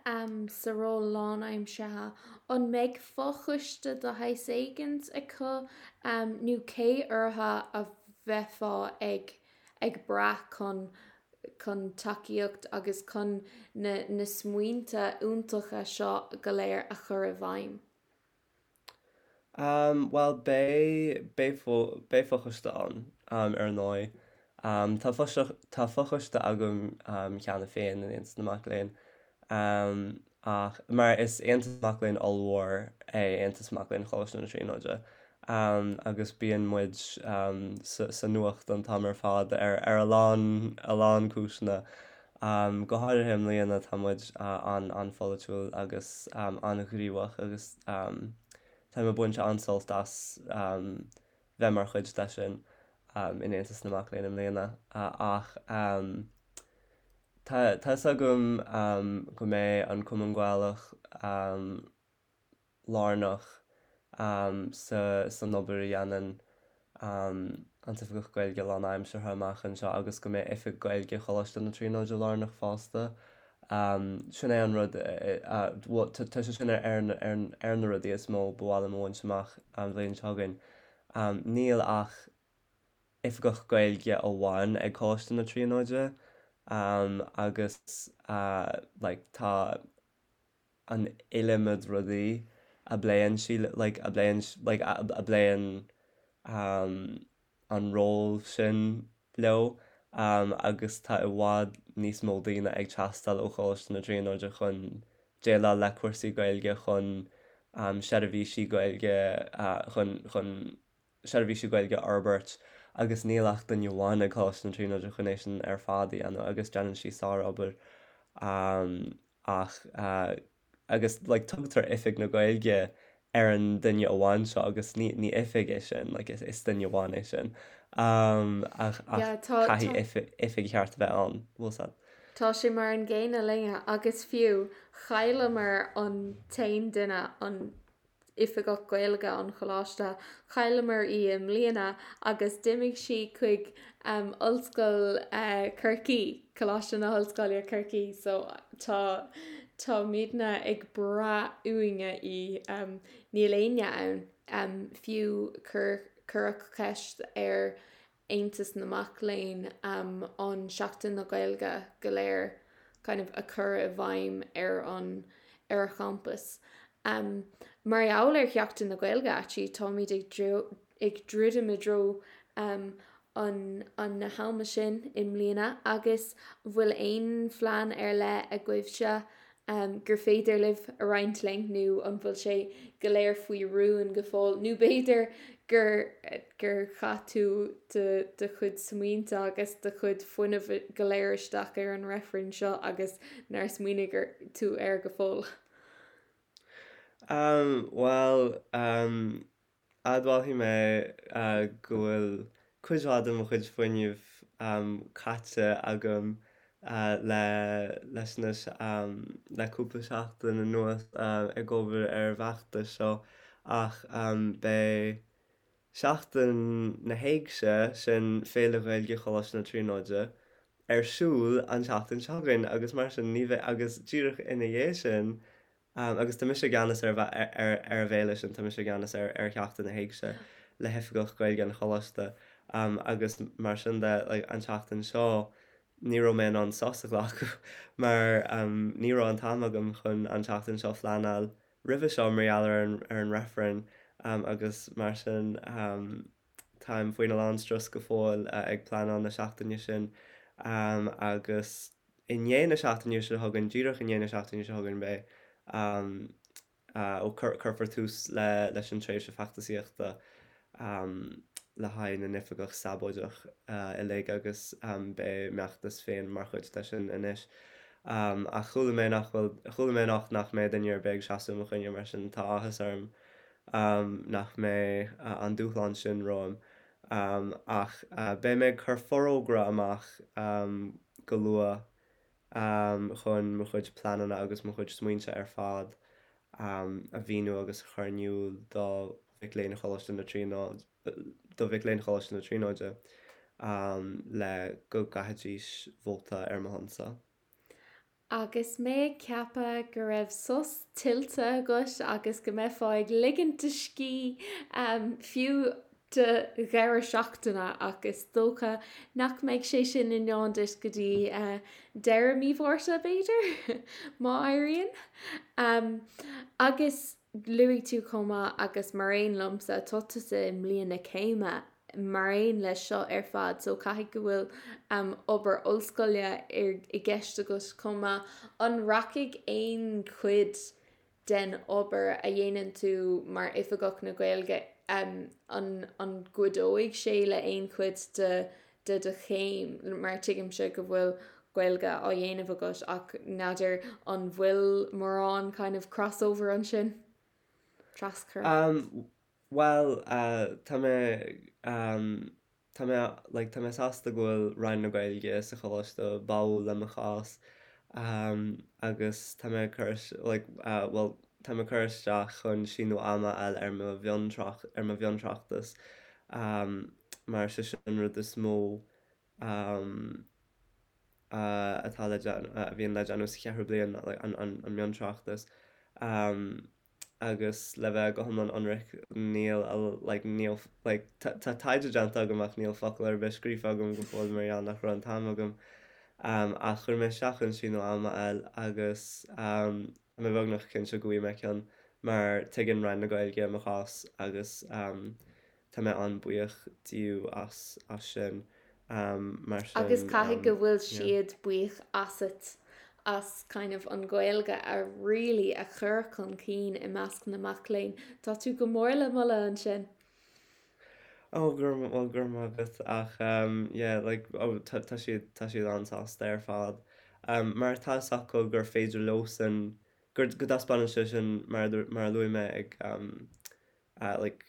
S1: sa ról lánaimseartha, an mbeidh fochoiste de shaghas éigint acu nó cé orthu a bheifeá ag ag brath chun chun tacaíocht agus chun na na smaointe iontacha seo go léir a chur i bhfeidhm?
S3: Bhuel, beidh, beidh beidh fochoiste ann, ar ndóigh. Tá tá fochoiste agam cheana féin in Aontas na Mac Léinn, ach, mar is aontas mac léinn ollmhór é Aontas Mac Léinn Choláiste na Tríonóide, agus bíonn muid sa nuacht an t-am ar fad ar ar a lán, a lán cúiseanna. Go háirithe i mbliana tá muid an-an-pholaitiúil agus an-ghníomhach agus táim ag baint an-sult as bheith mar chuid de sin in Aontas na Mac Léinn i mbliana. Ach tá tá 'fhios agam go mbeidh an Cumann Gaelach lárnach san obair a dhéanann an tOifigeach Gaeilge lánaimseartha amach anseo agus go mbeidh Oifig Gaeilge Choláiste na Tríonóide lárnach fosta. Sin é an rud, bhuel, tá sé sin ar ar na rudaí is mó ba mhaith liom a bhaint amach an bhliain seo chugainn. Níl ach Oifigeach Gaeilge amháin ag Coláiste na Tríonóide agus like tá an iliomad rudaí a bpléann sí like a bpléann like a bpléann an ról sin leo agus tá i bhfad níos mó daoine ag teastáil ó Choláiste na Tríonóide chun déileáil le cúrsaí Gaeilge, chun seirbhísí Gaeilge chun chun seirbhísí Gaeilge a fhorbairt agus níl ach duine amháin ag Coláiste na Tríonóide chun é sin ar fad a dhéanamh agus déanann sí sárobair ach agus like tugtar Oifig na Gaeilge ar an duine amháin seo agus ní ní oifig é sin like is is duine amháin é sin ach ach
S1: Yeah, tá
S3: caithfidh
S1: tá
S3: oifig oifig cheart a bheith ann, bhfuil 's a'd.
S1: Tá sé mar an gcéanna linne agus fiú chailleamar an t-aon duine an Oifigeach Gaeilge an Choláiste. Chailleamar í i mbliana agus d'imigh sí chuig Ollscoil Chorcaí, Coláiste na hOllscoile Corcaí so tá. Táimidne ag brath uainne í. Níl éinne ann. Fiú cuireadh ceist ar Aontas na Mac Léinn an Seachtain na Gaeilge go léir kind of a chur i bhfeidhm ar an ar an champas. Mar gheall ar Sheachtain na Gaeilge actually táimid ag ag druidim i dtreo an an na hama sin i mbliana agus bhfuil aon phlean ar leith agaibhse gur féidir libh a roinnt linn nó an bhfuil sé go léir faoi rún go fóill nó b'fhéidir gur gur chaith tú do do chuid smaointe agus do chuid fuinnimh go léir isteach ar an reifreann seo agus nár smaoinigh tú air go fóill?
S3: Bhuel, Admhálfaidh mé go bhfuil cuid mhaith de mo chuid fuinnimh caite agam le leis na le cúpla seachtain anuas ag obair ar an bhfeachtas seo ach beidh Seachtain na hÉigse, sin Féile Ghaeilge Choláiste na Tríonóide, ar siúl an tseachtain seo chugainn agus mar sin ní bheidh agus díreach ina dhiaidh sin Agus tá mise i gceannas ar ar an bhféile sin, tá mise i gceannas ar ar Sheachtain na hÉigse le hOifigeach Gaeilge an Choláiste agus mar sin de like an tseachtain seo ní raibh mé in ann sos a ghlacadh mar ní raibh an t-am agam chun an tseachtain seo a phleanáil roimhe seo mar gheall ar an ar an reifreann agus mar sin táim faoina lán strus go fóill ag pleanáil na seachtaine sin agus i ndiaidh na seachtaine seo chugainn, díreach i ndiaidh na seachtaine seo chugainn, beidh, ó, cuirfear tús le, leis an tréimhse feachtasaíochta le haghaidh na n-oifigeach sabóideach uilig agus beidh m'fheachtas féin mar chuid de sin anois. Ach chuala mé nach bhfuil, chuala mé anocht nach mbeidh duine ar bith ag seasamh i mo choinne, mar sin tá áthas orm nach mbeidh an dúshlán sin romham. Ach beidh mé ag cur forógra amach go luath chun mo chuid pleananna agus mo chuid smaointe ar fad a mhíniú agus a chur in iúl do mhic léinn Choláiste na Tríonóide, do mhic léinn Choláiste na Tríonóide le go gcaithfidís vóta ar mo shonsa.
S1: Agus mé ag ceapadh go raibh sos tuillte agat agus go mbeifeá ag ligint do scíth fiú do dheireadh seachtaine ach is dócha nach mbeidh sé sin i ndán duit go dtí deireadh mí Mhárta, b'fhéidir, má éiríonn. Agus luaigh tú chomh maith agus mar aon liomsa, tá tusa i mbliain na céime mar aon leis seo ar fad so caithfidh go bhfuil obair ollscoile i gceist agat chomh maith. An rachaidh aon chuid den obair a dhéanann tú mar Oifigeach na Gaeilge, an an gcuideoidh sé le aon chuid de de do chéim mar tuigimse go bhfuil Gaeilge á dhéanamh agat ach n'fheadar an bhfuil mórán kind of crossover ansin? Traschur?
S3: Bhuel, tá mé, tá mé, like, tá mé sásta go bhfuil Roinn na Gaeilge sa choláiste báúil le mo chás agus tá mé ag cur, like, bhuel, tá mé ag cur isteach chun síneadh ama a fháil ar mo mhiontrácht, ar mo mhiontráchtas mar sé sin an rud is mó atá le déanamh, a bhíonn le déanamh sa cheathrú bliain, like, an, an, an miontráchtas. Agus le bheith go hiomlán ionraic, níl a, like, níl, like, tá, tá taighde déanta agam ach níl focal ar bith scríofa agam go fóill mar gheall nach raibh an t-am agam. Ach chuir mé isteach chun síneadh ama a fháil agus tá mé beagnach cinnte go bhfaighidh mé ceann mar tuigeann Roinn na Gaeilge mo chás agus Tá mé an-buíoch díobh as as sin. Mar sin,
S1: Agus caithfidh go bhfuil siad buíoch asat as kind of an Ghaeilge a really a chur chun cinn i measc na mac léinn. Tá tú go mór le moladh ansin.
S3: Oh, go raibh, well, go raibh maith agat ach yeah, like, oh, tá, tá siad, tá siad an-sásta ar fad. Mar tá fhios acu gur féidir leosan, gur, go dtaispeánann sé sin mar, mar a luaigh mé ag like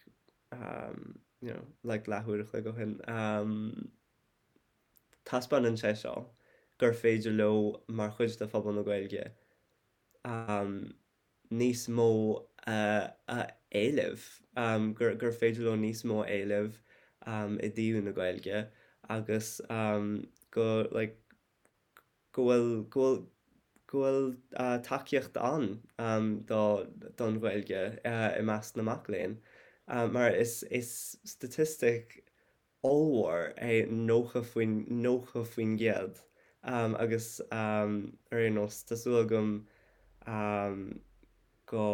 S3: you know like leathuair a chloig ó shin taispeánann sé seo gur féidir leo mar chuid de phobal na Gaeilge níos mó a éileamh, gur gur féidir leo níos mó a éileamh i dtaobh na Gaeilge agus go like go bhfuil go bhfuil go. go bhfuil tacaíocht ann do don Ghaeilge i measc na mac léinn mar is is statistic ollmhór é 90 faoin 90% agus ar aon nós tá súil agam go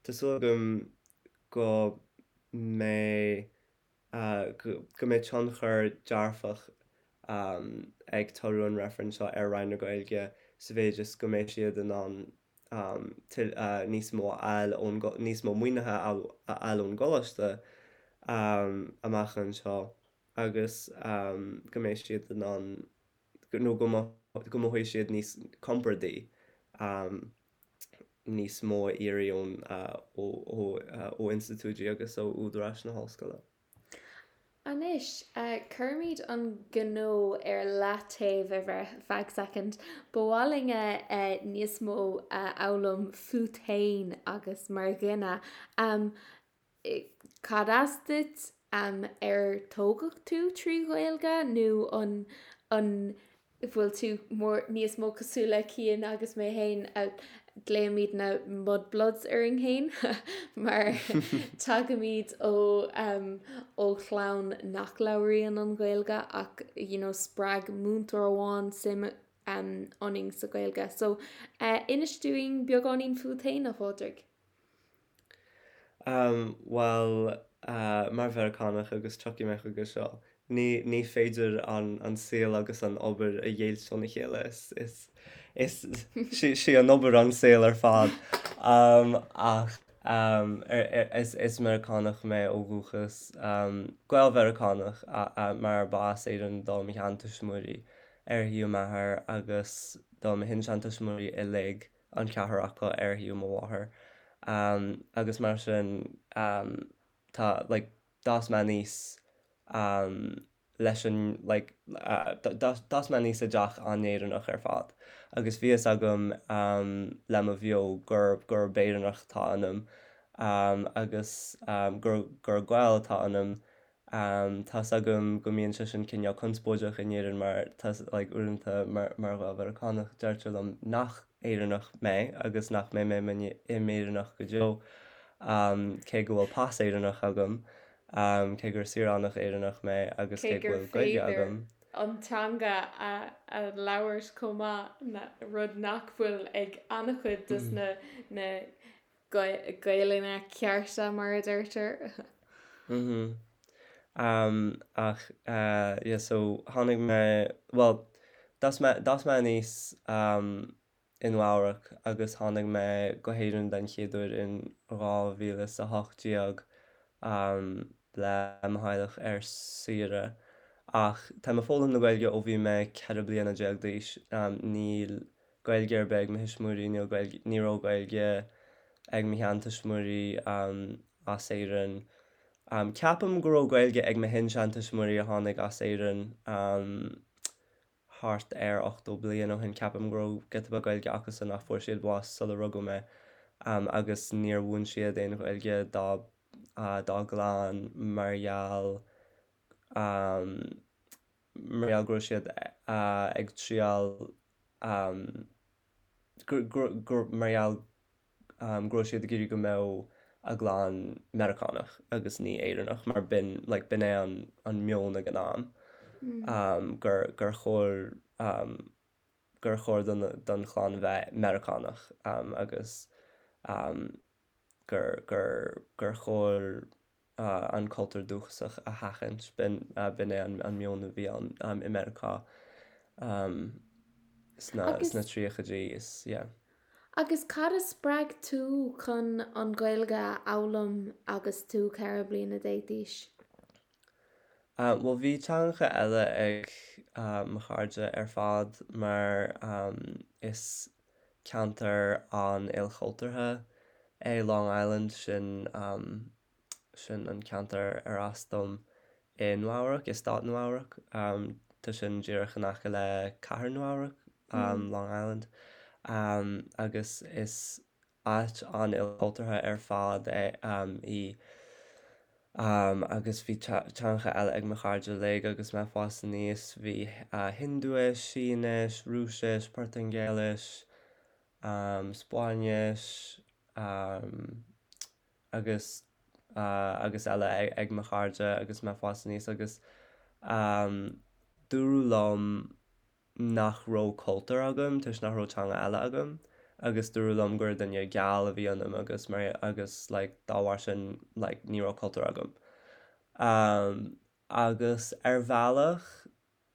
S3: tá súil agam go mbeidh go mbeidh tionchar dearfach ag toradh an reifrinn seo ar Roinn na Gaeilge sa mhéid is go mbeidh siad in ann níos mó a fháil ón, níos mó maoinithe a fháil ón gcoláiste amach anseo agus go mbeidh siad in ann nó go mothóidh siad níos compordaí níos mó a iarraidh ón ó institiúidí agus ó údaráis na hollscoile.
S1: Anois, cuirimid an gnó ar leataobh ar feadh soicind. Ba mhaith linn níos mó a fhoghlaim fút féin agus mar dhuine. Cad as duit? Ar tógadh tú trí Ghaeilge nó an an bhfuil tú mór níos mó cosúil le Cian agus mé féin a glaoimid na mudbloods orainn féin mar tagaimid ó ó chlann nach labhraíonn an Ghaeilge ach you know spreag múinteoir amháin suim ionainn sa Ghaeilge. So inis dúinn beagáinín fút féin, a Phádraig.
S3: Bhuel, mar Mheiriceánach, agus tiocfaidh mé chuige seo, ní, ní féidir an, an saol agus an obair a dheighilt óna chéile. Is, is, is, sí, sí an obair an saol ar fad. Ach is, is Meiriceánach mé ó dhúchas, Gael-Mheiriceánach, mar ba as Éirinn do mo sheantuismitheoirí ar thaobh m'athar agus do mo shin-seantuismitheoirí uilig. an ceathrar acu ar thaobh mo mháthar agus mar sin tá like d'fhás mé aníos leis an like d'fhás mé aníos i dteach an-Éireannach ar fad agus bhí fhios agam le mo bheo gur gurb Éireannach atá ionam agus gur gur Gael atá ionam Tá's agam go mbíonn sé sin cineál conspóideach in Éirinn mar tá like uaireanta mar mar Ghael-Mheiriceánach deirtear liom nach Éireannach mé agus nach mbeidh mé i m'Éireannach go deo cé go bhfuil pas Éireannach agam, cé gur saoránach Éireannach mé agus
S1: cé go bhfuil Gaeilge agam. an teanga a a labhairt chomh maith, rud nach bhfuil ag an-chuid dos na na Gaelainne cearta mar a deirtear.
S3: Mhm. Ach yeah so tháinig mé, bhuel d'fhás mé, d'fhás mé aníos i Nua Eabhrac agus tháinig mé go hÉirinn den chéad uair in 2018 le mo theaghlach ar saoire. Ach táim ag foghlaim na Gaeilge ó bhí mé 14 bliana d'aois. Níl Gaeilge ar bith ag mo thuismitheoirí, níl Gaeilge, ní raibh Gaeilge ag mo sheantuismitheoirí as Éirinn. Ceapaim go raibh Gaeilge ag mo shin-seantuismitheoirí a tháinig as Éirinn thart ar 80 bliain ó shin, ceapaim go raibh giota beag Gaeilge acusan ach fuair siad bás sula rugadh mé agus níor mhúin siad aon Ghaeilge dá dá gclann mar gheall mar gheall go raibh siad ag triail mar gheall go raibh siad ag iarraidh go mbeadh a gclann Meiriceánach agus ní Éireannach mar b'in like b'in é an an meon ag an am gur gur chóir gur chóir don don chlann bheith Meiriceánach agus gur gur gur chóir an cultúr dúchasach a sheachaint. B'in é an meon a bhí ann i Meiriceá sna tríochaidí is yeah.
S1: Agus cad a spreag tú chun an Ghaeilge a fhoghlaim agus tú 14 bliana d'aois?
S3: Bhuel bhí teangacha eile ag mo chairde ar fad mar is ceantar an-ilchultúrtha é Long Island, sin sin an ceantar ar as dom i Nua Eabhrac, i stát Nua Eabhrac. Tá sin díreach in aice le cathair Nua Eabhrac, Long Island, agus is áit an-ilchultúrtha ar fad é í. Agus bhí teangacha eile ag mo chairde uilig agus mé ag fás aníos, bhí Hiondúis, Sínis, Rúisis, Portaingéilis, Spáinnis agus agus eile ag mo chairde agus mé ag fás aníos agus dúradh liom nach raibh cultúr agam toisc nach raibh teanga eile agam agus dúradh liom gur duine geal a bhí ionam agus mar agus like dá bharr sin like ní raibh cultúr agam. Agus ar bhealach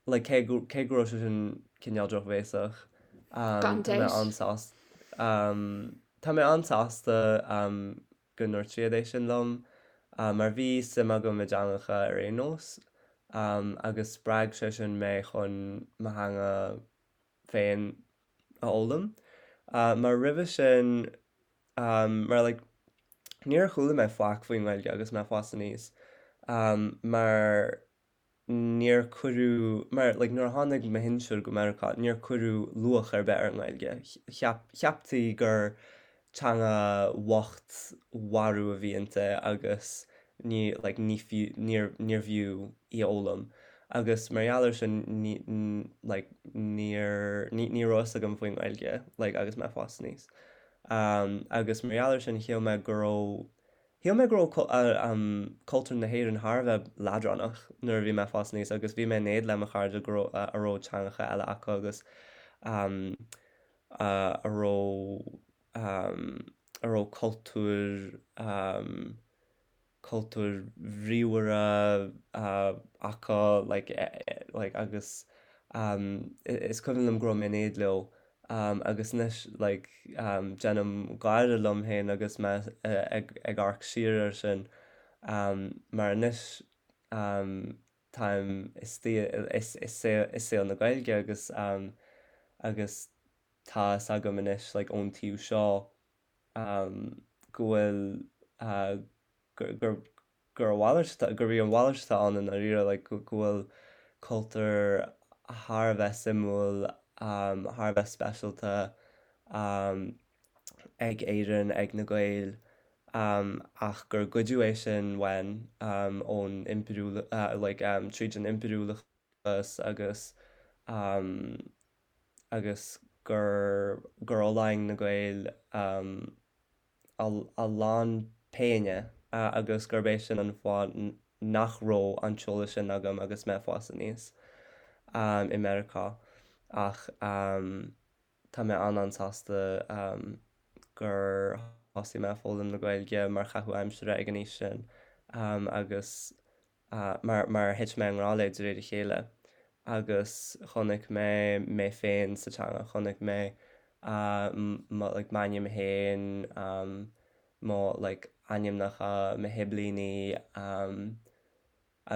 S3: like cé go cé go raibh sé sin cineál drochbhéasach
S1: Gan
S3: tá mé
S1: dabht.
S3: an-sásta tá mé an-sásta go ndúirt siad é sin liom mar bhí suim agam i dteangacha ar aon nós agus spreag sé sin mé chun mo theanga féin a fhoghlaim. Mar roimhe sin, mar like níor chuala mé faic faoin nGaeilge agus mé ag fás aníos mar níor cuireadh, mar like nuair a tháinig mo shinsir go Meiriceá níor cuireadh luach ar bith ar an nGaeilge. Cheap, cheaptaí gur teanga bhocht mharbh a bhí inti agus ní like ní fiú, níor, níorbh fhiú í a fhoghlaim. Agus mar gheall air sin ní, like níor, ní, ní raibh fhios agam faoin nGaeilge like agus mé ag fás aníos. Agus mar gheall air sin shíl mé go raibh Shíl mé go raibh cultúr na hÉireann thar a bheith leadránach nuair a bhí mé ag fás aníos agus bhí mé in éad le mo chairde go raibh a raibh teangacha eile acu agus a raibh a raibh cultúr cultúir bhríomhara acu like like agus is cuimhin liom go raibh mé in éad leo Agus anois like déanaim gáire liom féin agus mé ag amharc siar air sin mar anois táim istigh i saol na Gaeilge agus agus tá fhios agam anois like ón taobh seo go bhfuil gur gur a mhalairt atá, gurb í an mhalairt atá ann i ndáiríre, like go bhfuil cultúr thar a bheith suimiúil, thar a bheith speisialta ag Éirinn, ag na Gaeil, ach gur goideadh é sin uainn ón impiriúl, like tríd an impiriúlachas agus agus gur gur fhulaing na Gaeil a lán péine agus gurb é sin an fáth nach raibh an t-eolas sin agam agus mé ag fás aníos i Meiriceá. Ach tá mé an-an-sásta gur thosaigh mé ag foghlaim na Gaeilge mar chaitheamh aimsire ag an aois sin agus mar mar thit mé i ngrá léi de réir a chéile agus chonaic mé mé féin sa teanga, chonaic mé mo like m'ainm féin, mo like ainmneacha mo shiblíní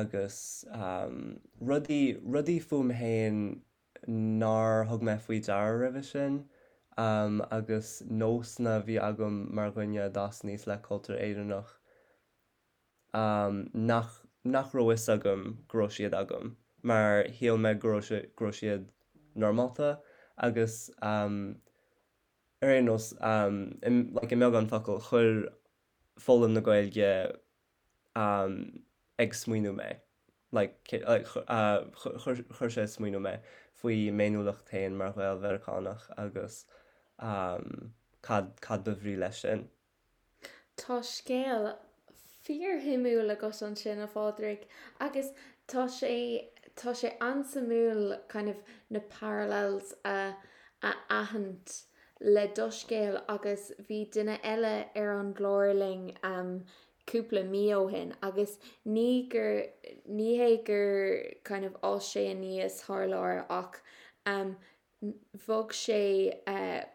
S3: agus rudaí rudaí fúm féin nár thug mé faoi deara roimhe sin agus nósanna a bhí agam mar dhuine a d'fhás aníos le cultúr Éireannach. nach nach raibh fhios agam go raibh siad agam mar shíl mé go raibh sé go raibh siad normálta agus ar aon nós like i mbeagán focal chuir foghlaim na Gaeilge ag smaoineamh mé like like chuir chuir sé ag smaoineamh mé faoi m'fhéiniúlacht féin mar Ghael-Mheiriceánach agus cad cad ba bhrí leis sin.
S1: Tá scéal fíorshuimiúil agat ansin, a Phádraig, agus tá sé, tá sé an-suimiúil kind of na parallels a, a aithint le do scéal agus bhí duine eile ar an gclár linn cúpla mí ó shin agus ní gur, ní hé gur kind of fhás sé aníos thar lear ach Bhog sé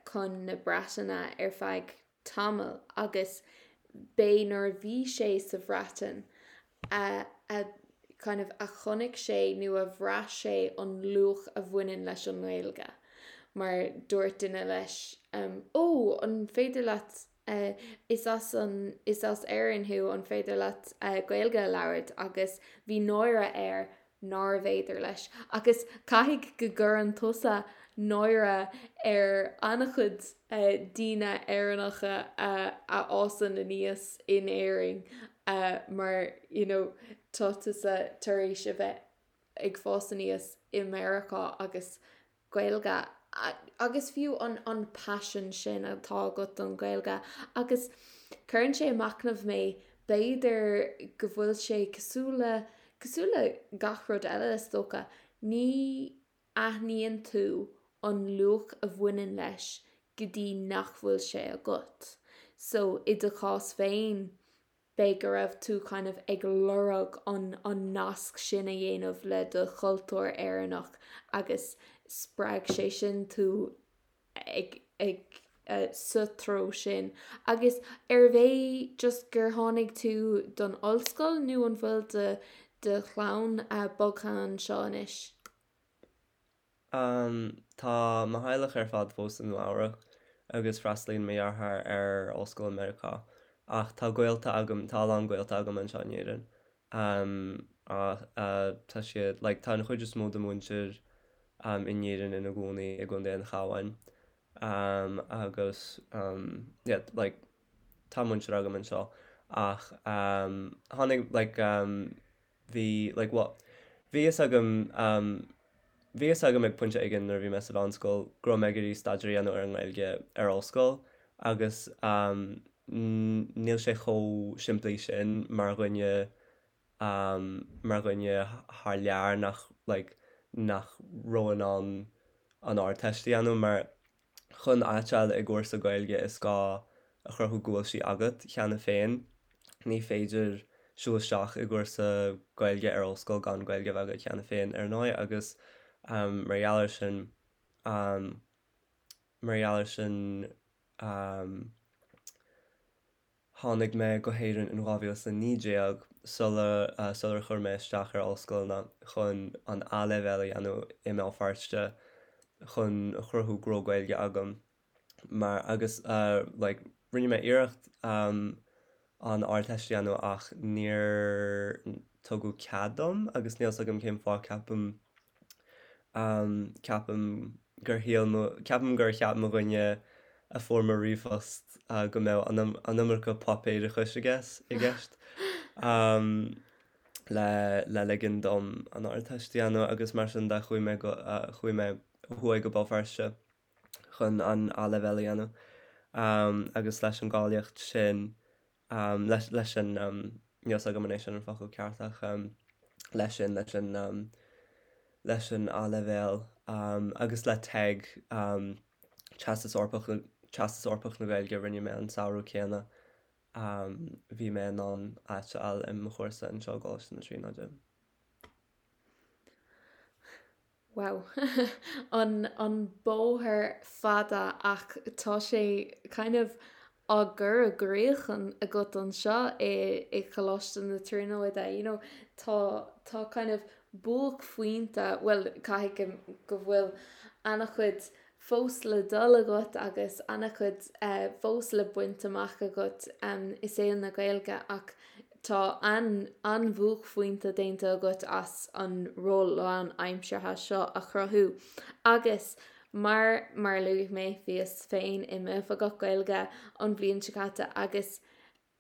S1: chun na Breataine ar feadh tamaill agus b'é nuair a bhí sé sa Bhreatain a a kind of a chonaic sé nó a bhraith sé an luach a bhaineann leis an nGaeilge mar dúirt duine leis 'Ó, an féidir leat is as an is as Éirinn thú, an féidir leat Gaeilge a labhairt? agus bhí náire air nárbh fhéidir leis. Agus caithfidh go gcuireann tusa náire ar an-chuid daoine Éireannacha a fhásann aníos in Éirinn. Mar you know tá tusa tar éis a bheith ag fás aníos i Meiriceá agus Gaeilge agus fiú an an paisean sin atá agat don Ghaeilge agus cuireann sé ag machnamh mé b'fhéidir go bhfuil sé cosúil le cosúil le gach rud eile is dócha ní aithníonn tú an luach a bhaineann leis go dtí nach bhfuil sé agat. So i do chás féin b'fhéidir go raibh tú kind of ag lorg an an nasc sin a dhéanamh le do chultúr Éireannach agus spreag sé sin tú ag ag sa treo sin. Agus arbh é just gur tháinig tú don ollscoil nó an bhfuil do do chlann bogtha anseo anois?
S3: Tá mo theaghlach ar fad fós i Nua Eabhrac agus freastalaíonn mo dheartháir ar ollscoil i Meiriceá. Ach tá gaolta agam, tá a lán gaolta agam anseo in Éirinn. Tá siad, like, tá an chuid is mó de mhuintir in Éirinn ina gcónaí i gContae an Chabháin. Agus, yeah, like, tá muintir agam anseo. Ach tháinig, like, Bhí, like, bhuel, bhí fhios agam, um, bhí fhios agam ag pointe éigin nuair a bhí mé sa mheánscoil go raibh mé ag iarraidh staidéar a dhéanamh ar an nGaeilge ar ollscoil agus, um, níl sé chomh simplí sin mar dhuine, um, mar dhuine thar lear nach, like, nach raibh in ann an Ardteist a dhéanamh mar Chun áit a fháil i gcúrsa Gaeilge is gá a chruthú go bhfuil sí agat cheana féin. Ní féidir siúl isteach i gcúrsa Gaeilge ar ollscoil gan Gaeilge a bheith agat cheana féin ar ndóigh agus mar gheall air sin mar gheall air sin Tháinig mé go hÉirinn in 2019 sula sular chuir mé isteach ar ollscoileanna chun an A-leibhéal a dhéanamh i mBéal Feirste chun a chruthú go raibh Gaeilge agam mar agus like rinne mé iarracht an Ardteist a dhéanamh ach níor tugadh cead dom agus níl 's agam cén fáth ceapaim Ceapaim gur shíl mo, ceapaim gur cheap mo dhuine a fuair mo ríomhphost go mbeadh an iomarca páipéarachais i gceist le le ligean dom an Ardteist a dhéanamh agus mar sin de chuaigh mé go, chuaigh mé ó thuaidh go Béal Feirste chun an A-leibhéal a dhéanamh agus leis an gcáilíocht sin leis leis an níl 's agam an é sin an focal ceart ach leis sin leis an leis an A-leibhéal agus le TEG Teastas Eorpach Teastas Eorpach na Gaeilge a rinne mé an samhradh céanna bhí mé in ann áit a fháil i mo chúrsa anseo i gColáiste na Tríonóide.
S1: Wow. An an bóthar fada ach tá sé kind of á gcur i gcrích agat anseo i i Coláiste na Tríonóide you know tá tá kind of buaicphointe bhuel caithfidh go go bhfuil an-chuid fós le dul agat agus an-chuid fós le baint amach agat i saol na Gaeilge ach tá an-bhuaicphointe déanta agat as an ról lánaimseartha seo a chruthú agus mar mar a luaigh mé bhíos féin i m'oifigeach Gaeilge an bhliain seo caite agus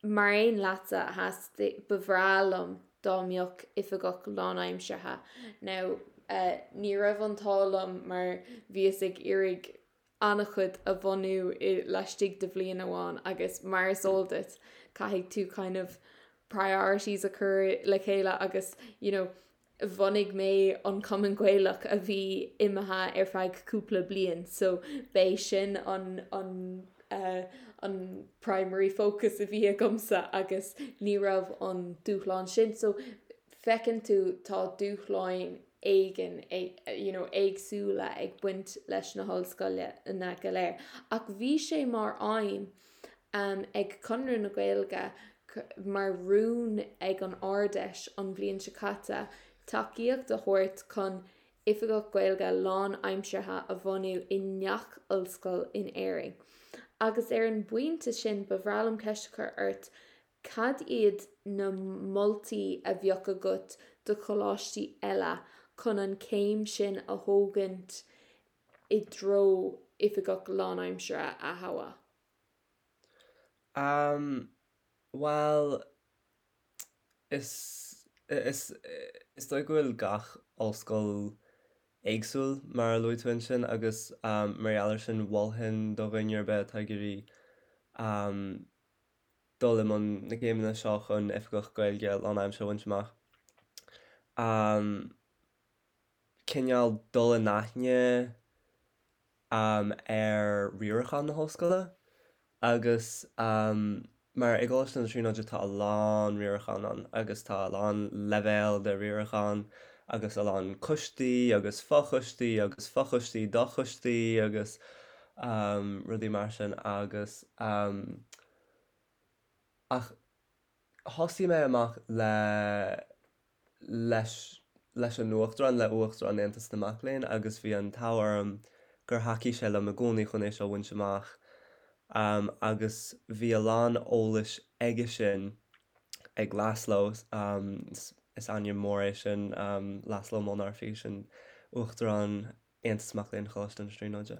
S1: Mar aon leatsa, theastaigh, ba bhreá liom dá mbeadh oifigeach lánaimseartha. Now, ní raibh an t-ádh liom mar bhíos ag iarraidh an-chuid a bhunú i laistigh de bhliain amháin agus mar is eol duit, caithfidh tú kind of priorities a chur le chéile agus, you know, bhunaigh mé an Cumann Gaelach a bhí imithe ar feadh cúpla bliain so b'é sin an an an primary focus a bhí agamsa agus ní raibh an dúshlán sin so feiceann tú tá dúshláin éigin you know éagsúla ag baint leis na hollscoileanna go léir ach bhí sé mar aidhm ag Conradh na Gaeilge mar rún ag an Ard-Fheis an bhliain seo caite tacaíocht a thabhairt chun Oifigeach Gaeilge lánaimseartha a bhunú i ngach ollscoil in Éirinn. Agus ar an bpointe sin ba bhreá liom ceist a chur ort, cad iad na moltaí a bheadh agat do choláistí eile chun an chéim sin a thógaint i dtreo oifigeach lánaimseartha a thoghadh?
S3: Umm, bhuel, Is is is dóigh go bhfuil gach ollscoil éagsúil, mar a luaigh tú ansin, agus mar gheall air sin mholfainn do dhuine ar bith atá ag iarraidh dul i mbun na céimeanna seo chun Oifigeach Gaeilge lánaimseartha a bhaint amach. Cineál dul in aithne ar riarachán na hollscoile agus mar i gColáiste na Tríonóide tá a lán riarachán ann agus tá a lán leibhéal de riarachán agus a lán coistí agus fochoistí agus fochoistí d'fhochoistí agus rudaí mar sin agus ach thosaigh mé amach le leis leis an Uachtarán, le Uachtarán Aontas na Mac Léinn agus bhí an t-ádh orm gur thacaigh sé liom i gcónaí chun é seo a bhaint amach agus bhí a lán eolais aige sin, ag Laszlo, is ainm mór é sin, Laszlo Molnárfi, sin Uachtarán Aontas Mac Léinn Choláiste na Tríonóide.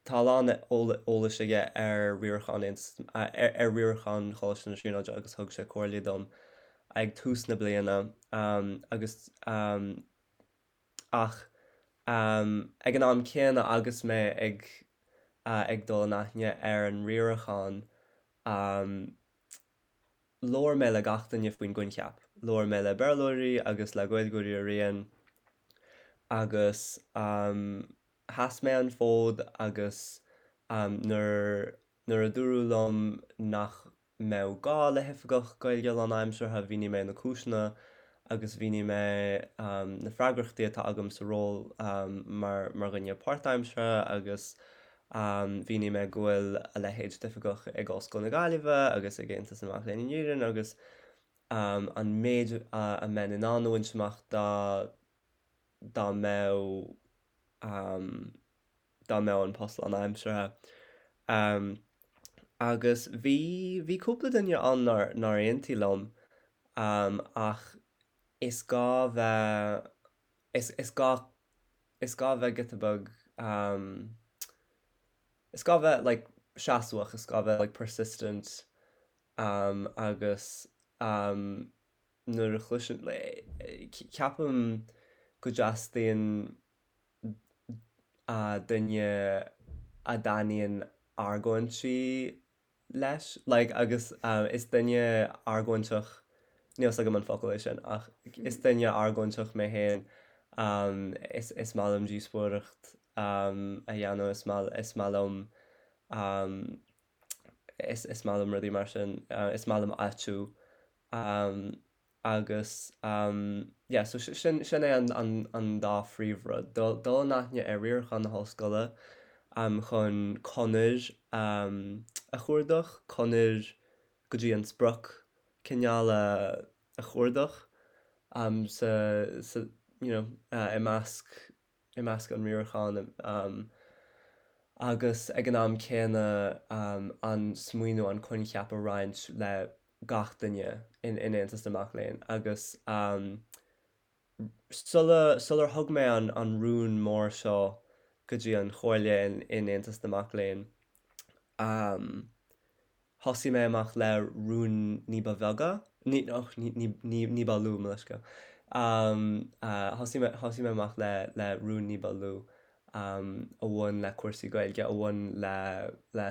S3: Tá a lán eolais aige ar riarachán ar riarachán Choláiste na Tríonóide agus thug sé comhairle dom ag tús na bliana agus ach ag an am céanna agus mé ag ag dul in aithne ar an riarachán labhair mé le gach duine faoin gcoincheap. Labhair mé le Béarlóirí agus le Gaeilgeoirí araon agus Sheas mé an fód agus nuair nuair a dúradh liom nach mbeadh gá le hoifigeach Gaeilge lánaimseartha, mhínigh mé na cúiseanna agus mhínigh mé na freagrachtaí atá agam sa ról mar mar dhuine páirtaimseartha agus mhínigh mé go bhfuil a leithéid d'oifigeach ag Ollscoil na Gaillimhe agus ag Aontas na Mac Léinn in Éirinn agus an méid a mbeinn in ann a bhaint amach dá dá mbeadh dá mbeadh an post lánaimseartha. Agus bhí, bhí cúpla duine ann nár, nár aontaigh liom ach is gá bheith, is, is gá, is gá bheith giota beag, is gá bheith like seasmhach, is gá bheith like persistent agus nuair a chloiseann, ceapaim go dteastaíonn duine a dtaitníonn argóintí leis, like agus is duine argóinteach, níl 's agam an focal é sin, ach is duine argóinteach mé féin, is is maith liom díospóireacht a dhéanamh, is maith is maith liom is is maith liom rudaí mar sin, is maith liom áitiú Agus yeah, so sin sin é an an an dá phríomhrud, dul dul in aithne ar riarachán na hollscoile chun conair a chuardach, conair go dtí an sprioc cineál a a chuardach sa sa you know i measc i measc an riaracháin agus ag an am céanna an smaoineamh, an coincheap a roinnt le gach duine in Aontas na Mac Léinn agus sula sular thug mé an an rún mór seo go dtí an chomhairle in Aontas na Mac Léinn Thosaigh mé amach le rúin ní ba bheaga, ní, och, ní, ní, ní, ní ba lú, mo leithscéal. Thosaigh mé, thosaigh mé amach le, le rúin ní ba lú a bhain le cúrsaí Gaeilge, a bhain le, le,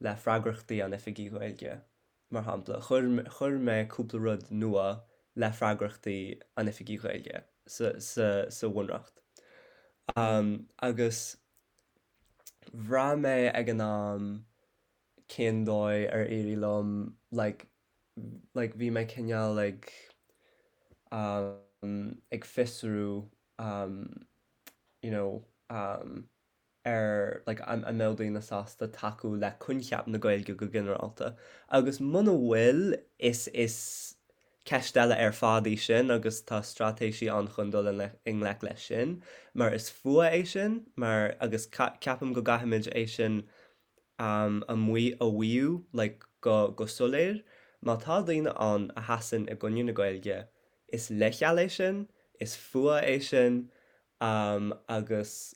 S3: le freagrachtaí an Oifigigh Ghaeilge, mar shampla. Chuir, chuir mé cúpla rud nua le freagrachtaí an Oifigigh Ghaeilge sa, sa, sa Bhunreacht. Agus Bhraith mé ag an am cén dóigh ar éirigh liom like like bhí mé cineál ag um ag fiosrú um you know um ar like an an mbeadh daoine sásta tacú le coincheap na Gaeilge go ginearálta agus muna bhfuil is is Ceist eile ar fad í sin agus tá straitéisí ann chun dul i ngleic leis sin, mar is fuath é sin, mar agus ceapaim go gcaithfimid é sin a mhaíomh like go go soiléir. Má tá daoine ann a sheasann i gcoinne na Gaeilge, is leithcheal é sin, is fuath é sin agus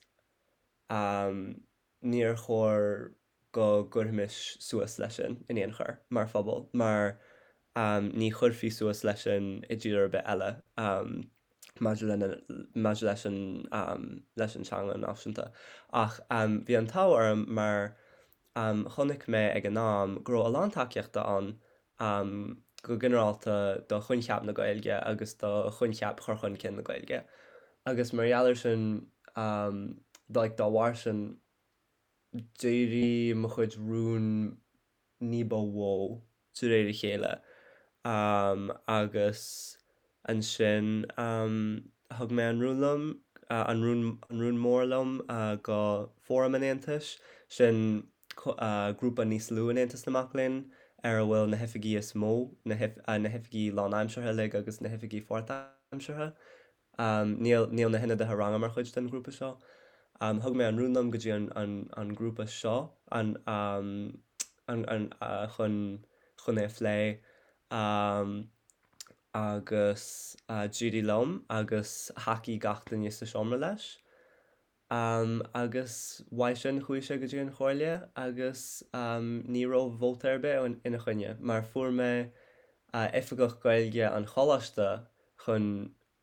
S3: níor chóir. go gcuirfimis suas leis sin in aon chor mar phobal mar ní chuirfí suas leis sin i dtír ar bith eile maidir lena maidir leis an leis an teanga náisiúnta. Ach bhí an t-ádh orm mar chonaic mé ag an am go raibh a lán tacaíochta ann go ginearálta do choincheap na Gaeilge agus do choincheap chur chun cinn na Gaeilge. Agus mar gheall air sin, like dá bharr sin, d'éirigh mo chuid rún ní ba mhó de réir a chéile agus ansin thug mé an rún liom, an rún, an rún mór liom go Fóram an Aontais, sin grúpa níos lú in Aontas na Mac Léinn ar a bhfuil na hoifigí is mó, na hoifigí lánaimseartha uilig agus na hoifigí pháirtaimseartha. Níl, níl na hionadaithe ranga mar chuid den ghrúpa seo. Thug mé an rún liom go dtí an, an, an grúpa seo, an, an, an, chun, chun é a phlé agus d'éirigh liom agus thacaigh gach duine sa seomra leis. Agus uaidh sin chuaigh sé go dtí an Chomhairle agus ní raibh vóta ar bith ina choinne mar fuair mé Oifigeach Gaeilge an Choláiste chun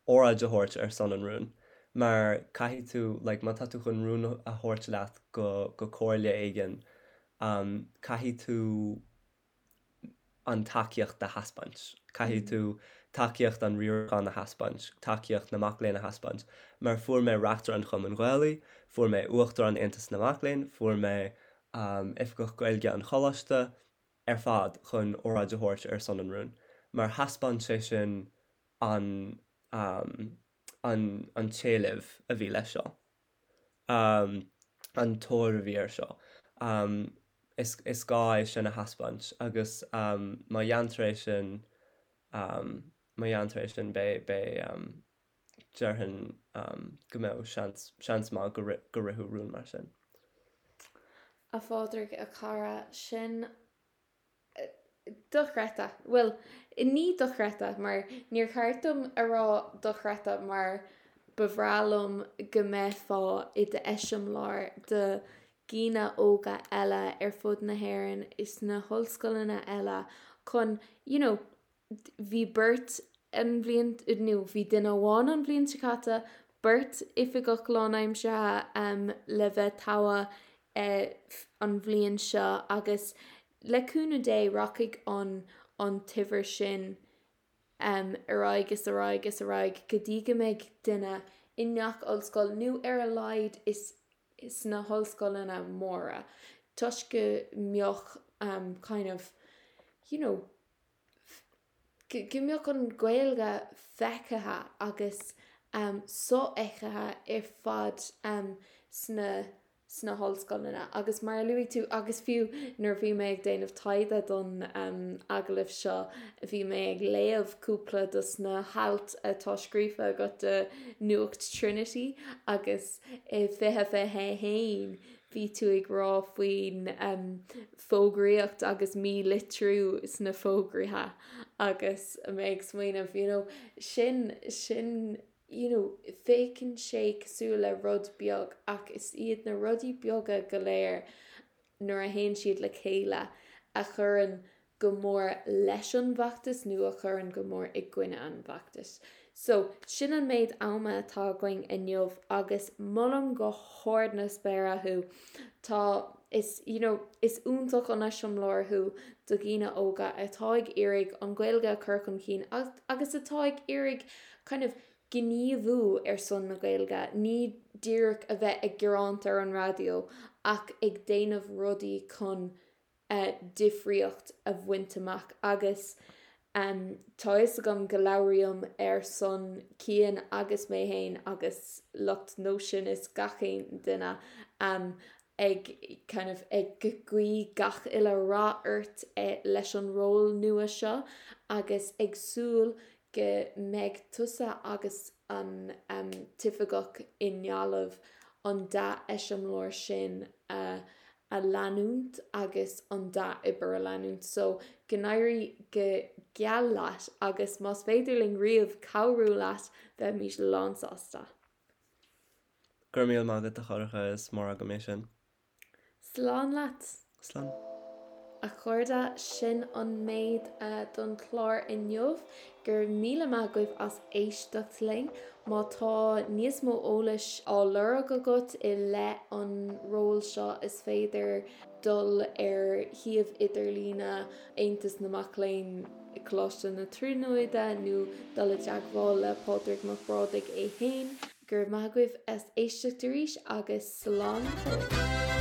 S3: óráid a thabhairt ar son an rúin mar caithfidh tú like má tá tú chun rún a thabhairt leat go go comhairle éigin caithfidh tú an tacaíocht a thaispeáint. Caithfidh tú tacaíocht an riaracháin a thaispeáint, tacaíocht na mac léinn a thaispeáint. Mar fuair mé Reachtaire an Chumainn Ghaelaigh, fuair mé Uachtarán Aontas na Mac Léinn, fuair mé Oifigeach Gaeilge an Choláiste ar fad chun óráid a thabhairt ar son an rúin. Mar thaispeáin sé sin an an an t-éileamh a bhí leis seo. an tóir a bhí air seo. Is is gá é sin a thaispeáint agus má dhéantar é sin, má dhéantar é sin beidh beidh déarfainn go mbeadh seans seans maith go go rithfeadh rún mar sin.
S1: A Phádraig, a chara, sin Dochreidte. Bhuel, ní dochreidte, mar níor cheart dom a rá dochreidte mar ba bhreá liom go mbeifeá i d'eiseamláir do dhaoine óga eile ar fud na hÉireann is na hollscoileanna eile chun, you know, Bhí beirt an bhliain, nó bhí duine amháin an bhliain seo caite, beirt oifigeach lánaimseartha le bheith togha an bhliain seo agus le cúnamh Dé rachaidh an an t-uimhir sin ar aghaidh is ar aghaidh is ar aghaidh go dtí go mbeidh duine i ngach ollscoil nó ar a laghad is sna hollscoileanna móra toisc go mbeadh kind of you know go mbeadh an Ghaeilge feicthe agus sofheicthe ar fad sna sna hollscoileanna. Agus mar a luaigh tú, agus fiú nuair a bhí mé ag déanamh taighde don agallamh seo, bhí mé ag léamh cúpla dos na hailt atá scríofa agat do Nuacht Trinity agus i 2021 bhí tú ag rá faoin fógraíocht agus mílitriú sna fógraithe agus mé ag smaoineamh you know sin sin you know féachann sé cosúil le rud beag ach is iad na rudaí beaga go léir nuair a théann siad le chéile a chuireann go mór leis an bhfeachtas nó a chuireann go mór i gcoinne an bhfeachtais. So, sin an méid ama atá againn inniu agus molaim go hard na spéire thú. Tá, is, you know, is iontach an eiseamláir thú do dhaoine óga atá ag iarraidh an Ghaeilge a chur chun cinn agus atá ag iarraidh kind of gníomhú ar son na Gaeilge, ní díreach a bheith ag gearáint ar an raidió ach ag déanamh rudaí chun difríocht a bhaint amach agus tá fhios agam go labhraím ar son Cian agus mé fhéin agus lucht Nóisean is gach aon duine ag kind of ag guí gach uile rath ort leis an ról nua seo agus ag súil go mbeidh tusa agus an t-oifigeach i nGaillimh an dea-eiseamláir sin a a leanúint agus an dea-obair a leanúint. So, go n-éirí go geal leat agus más féidir linn riamh cabhrú leat, bheimís lánsásta.
S3: Go raibh míle maith agat a Shorcha, is mór agam é sin.
S1: Slán leat!
S3: Slán.
S1: A chairde, sin an méid don chlár inniu. Go raibh míle maith agaibh as éisteacht linn. Má tá níos mó eolais á lorg agat i leith an ról seo is féidir dul ar shuíomh idirlíne Aontas na Mac Léinn i Coláiste na Tríonóide nó dul i dteagmháil le Pádraig Mac Brádaigh é féin. Go raibh maith agaibh as éisteacht arís agus slán go fóill.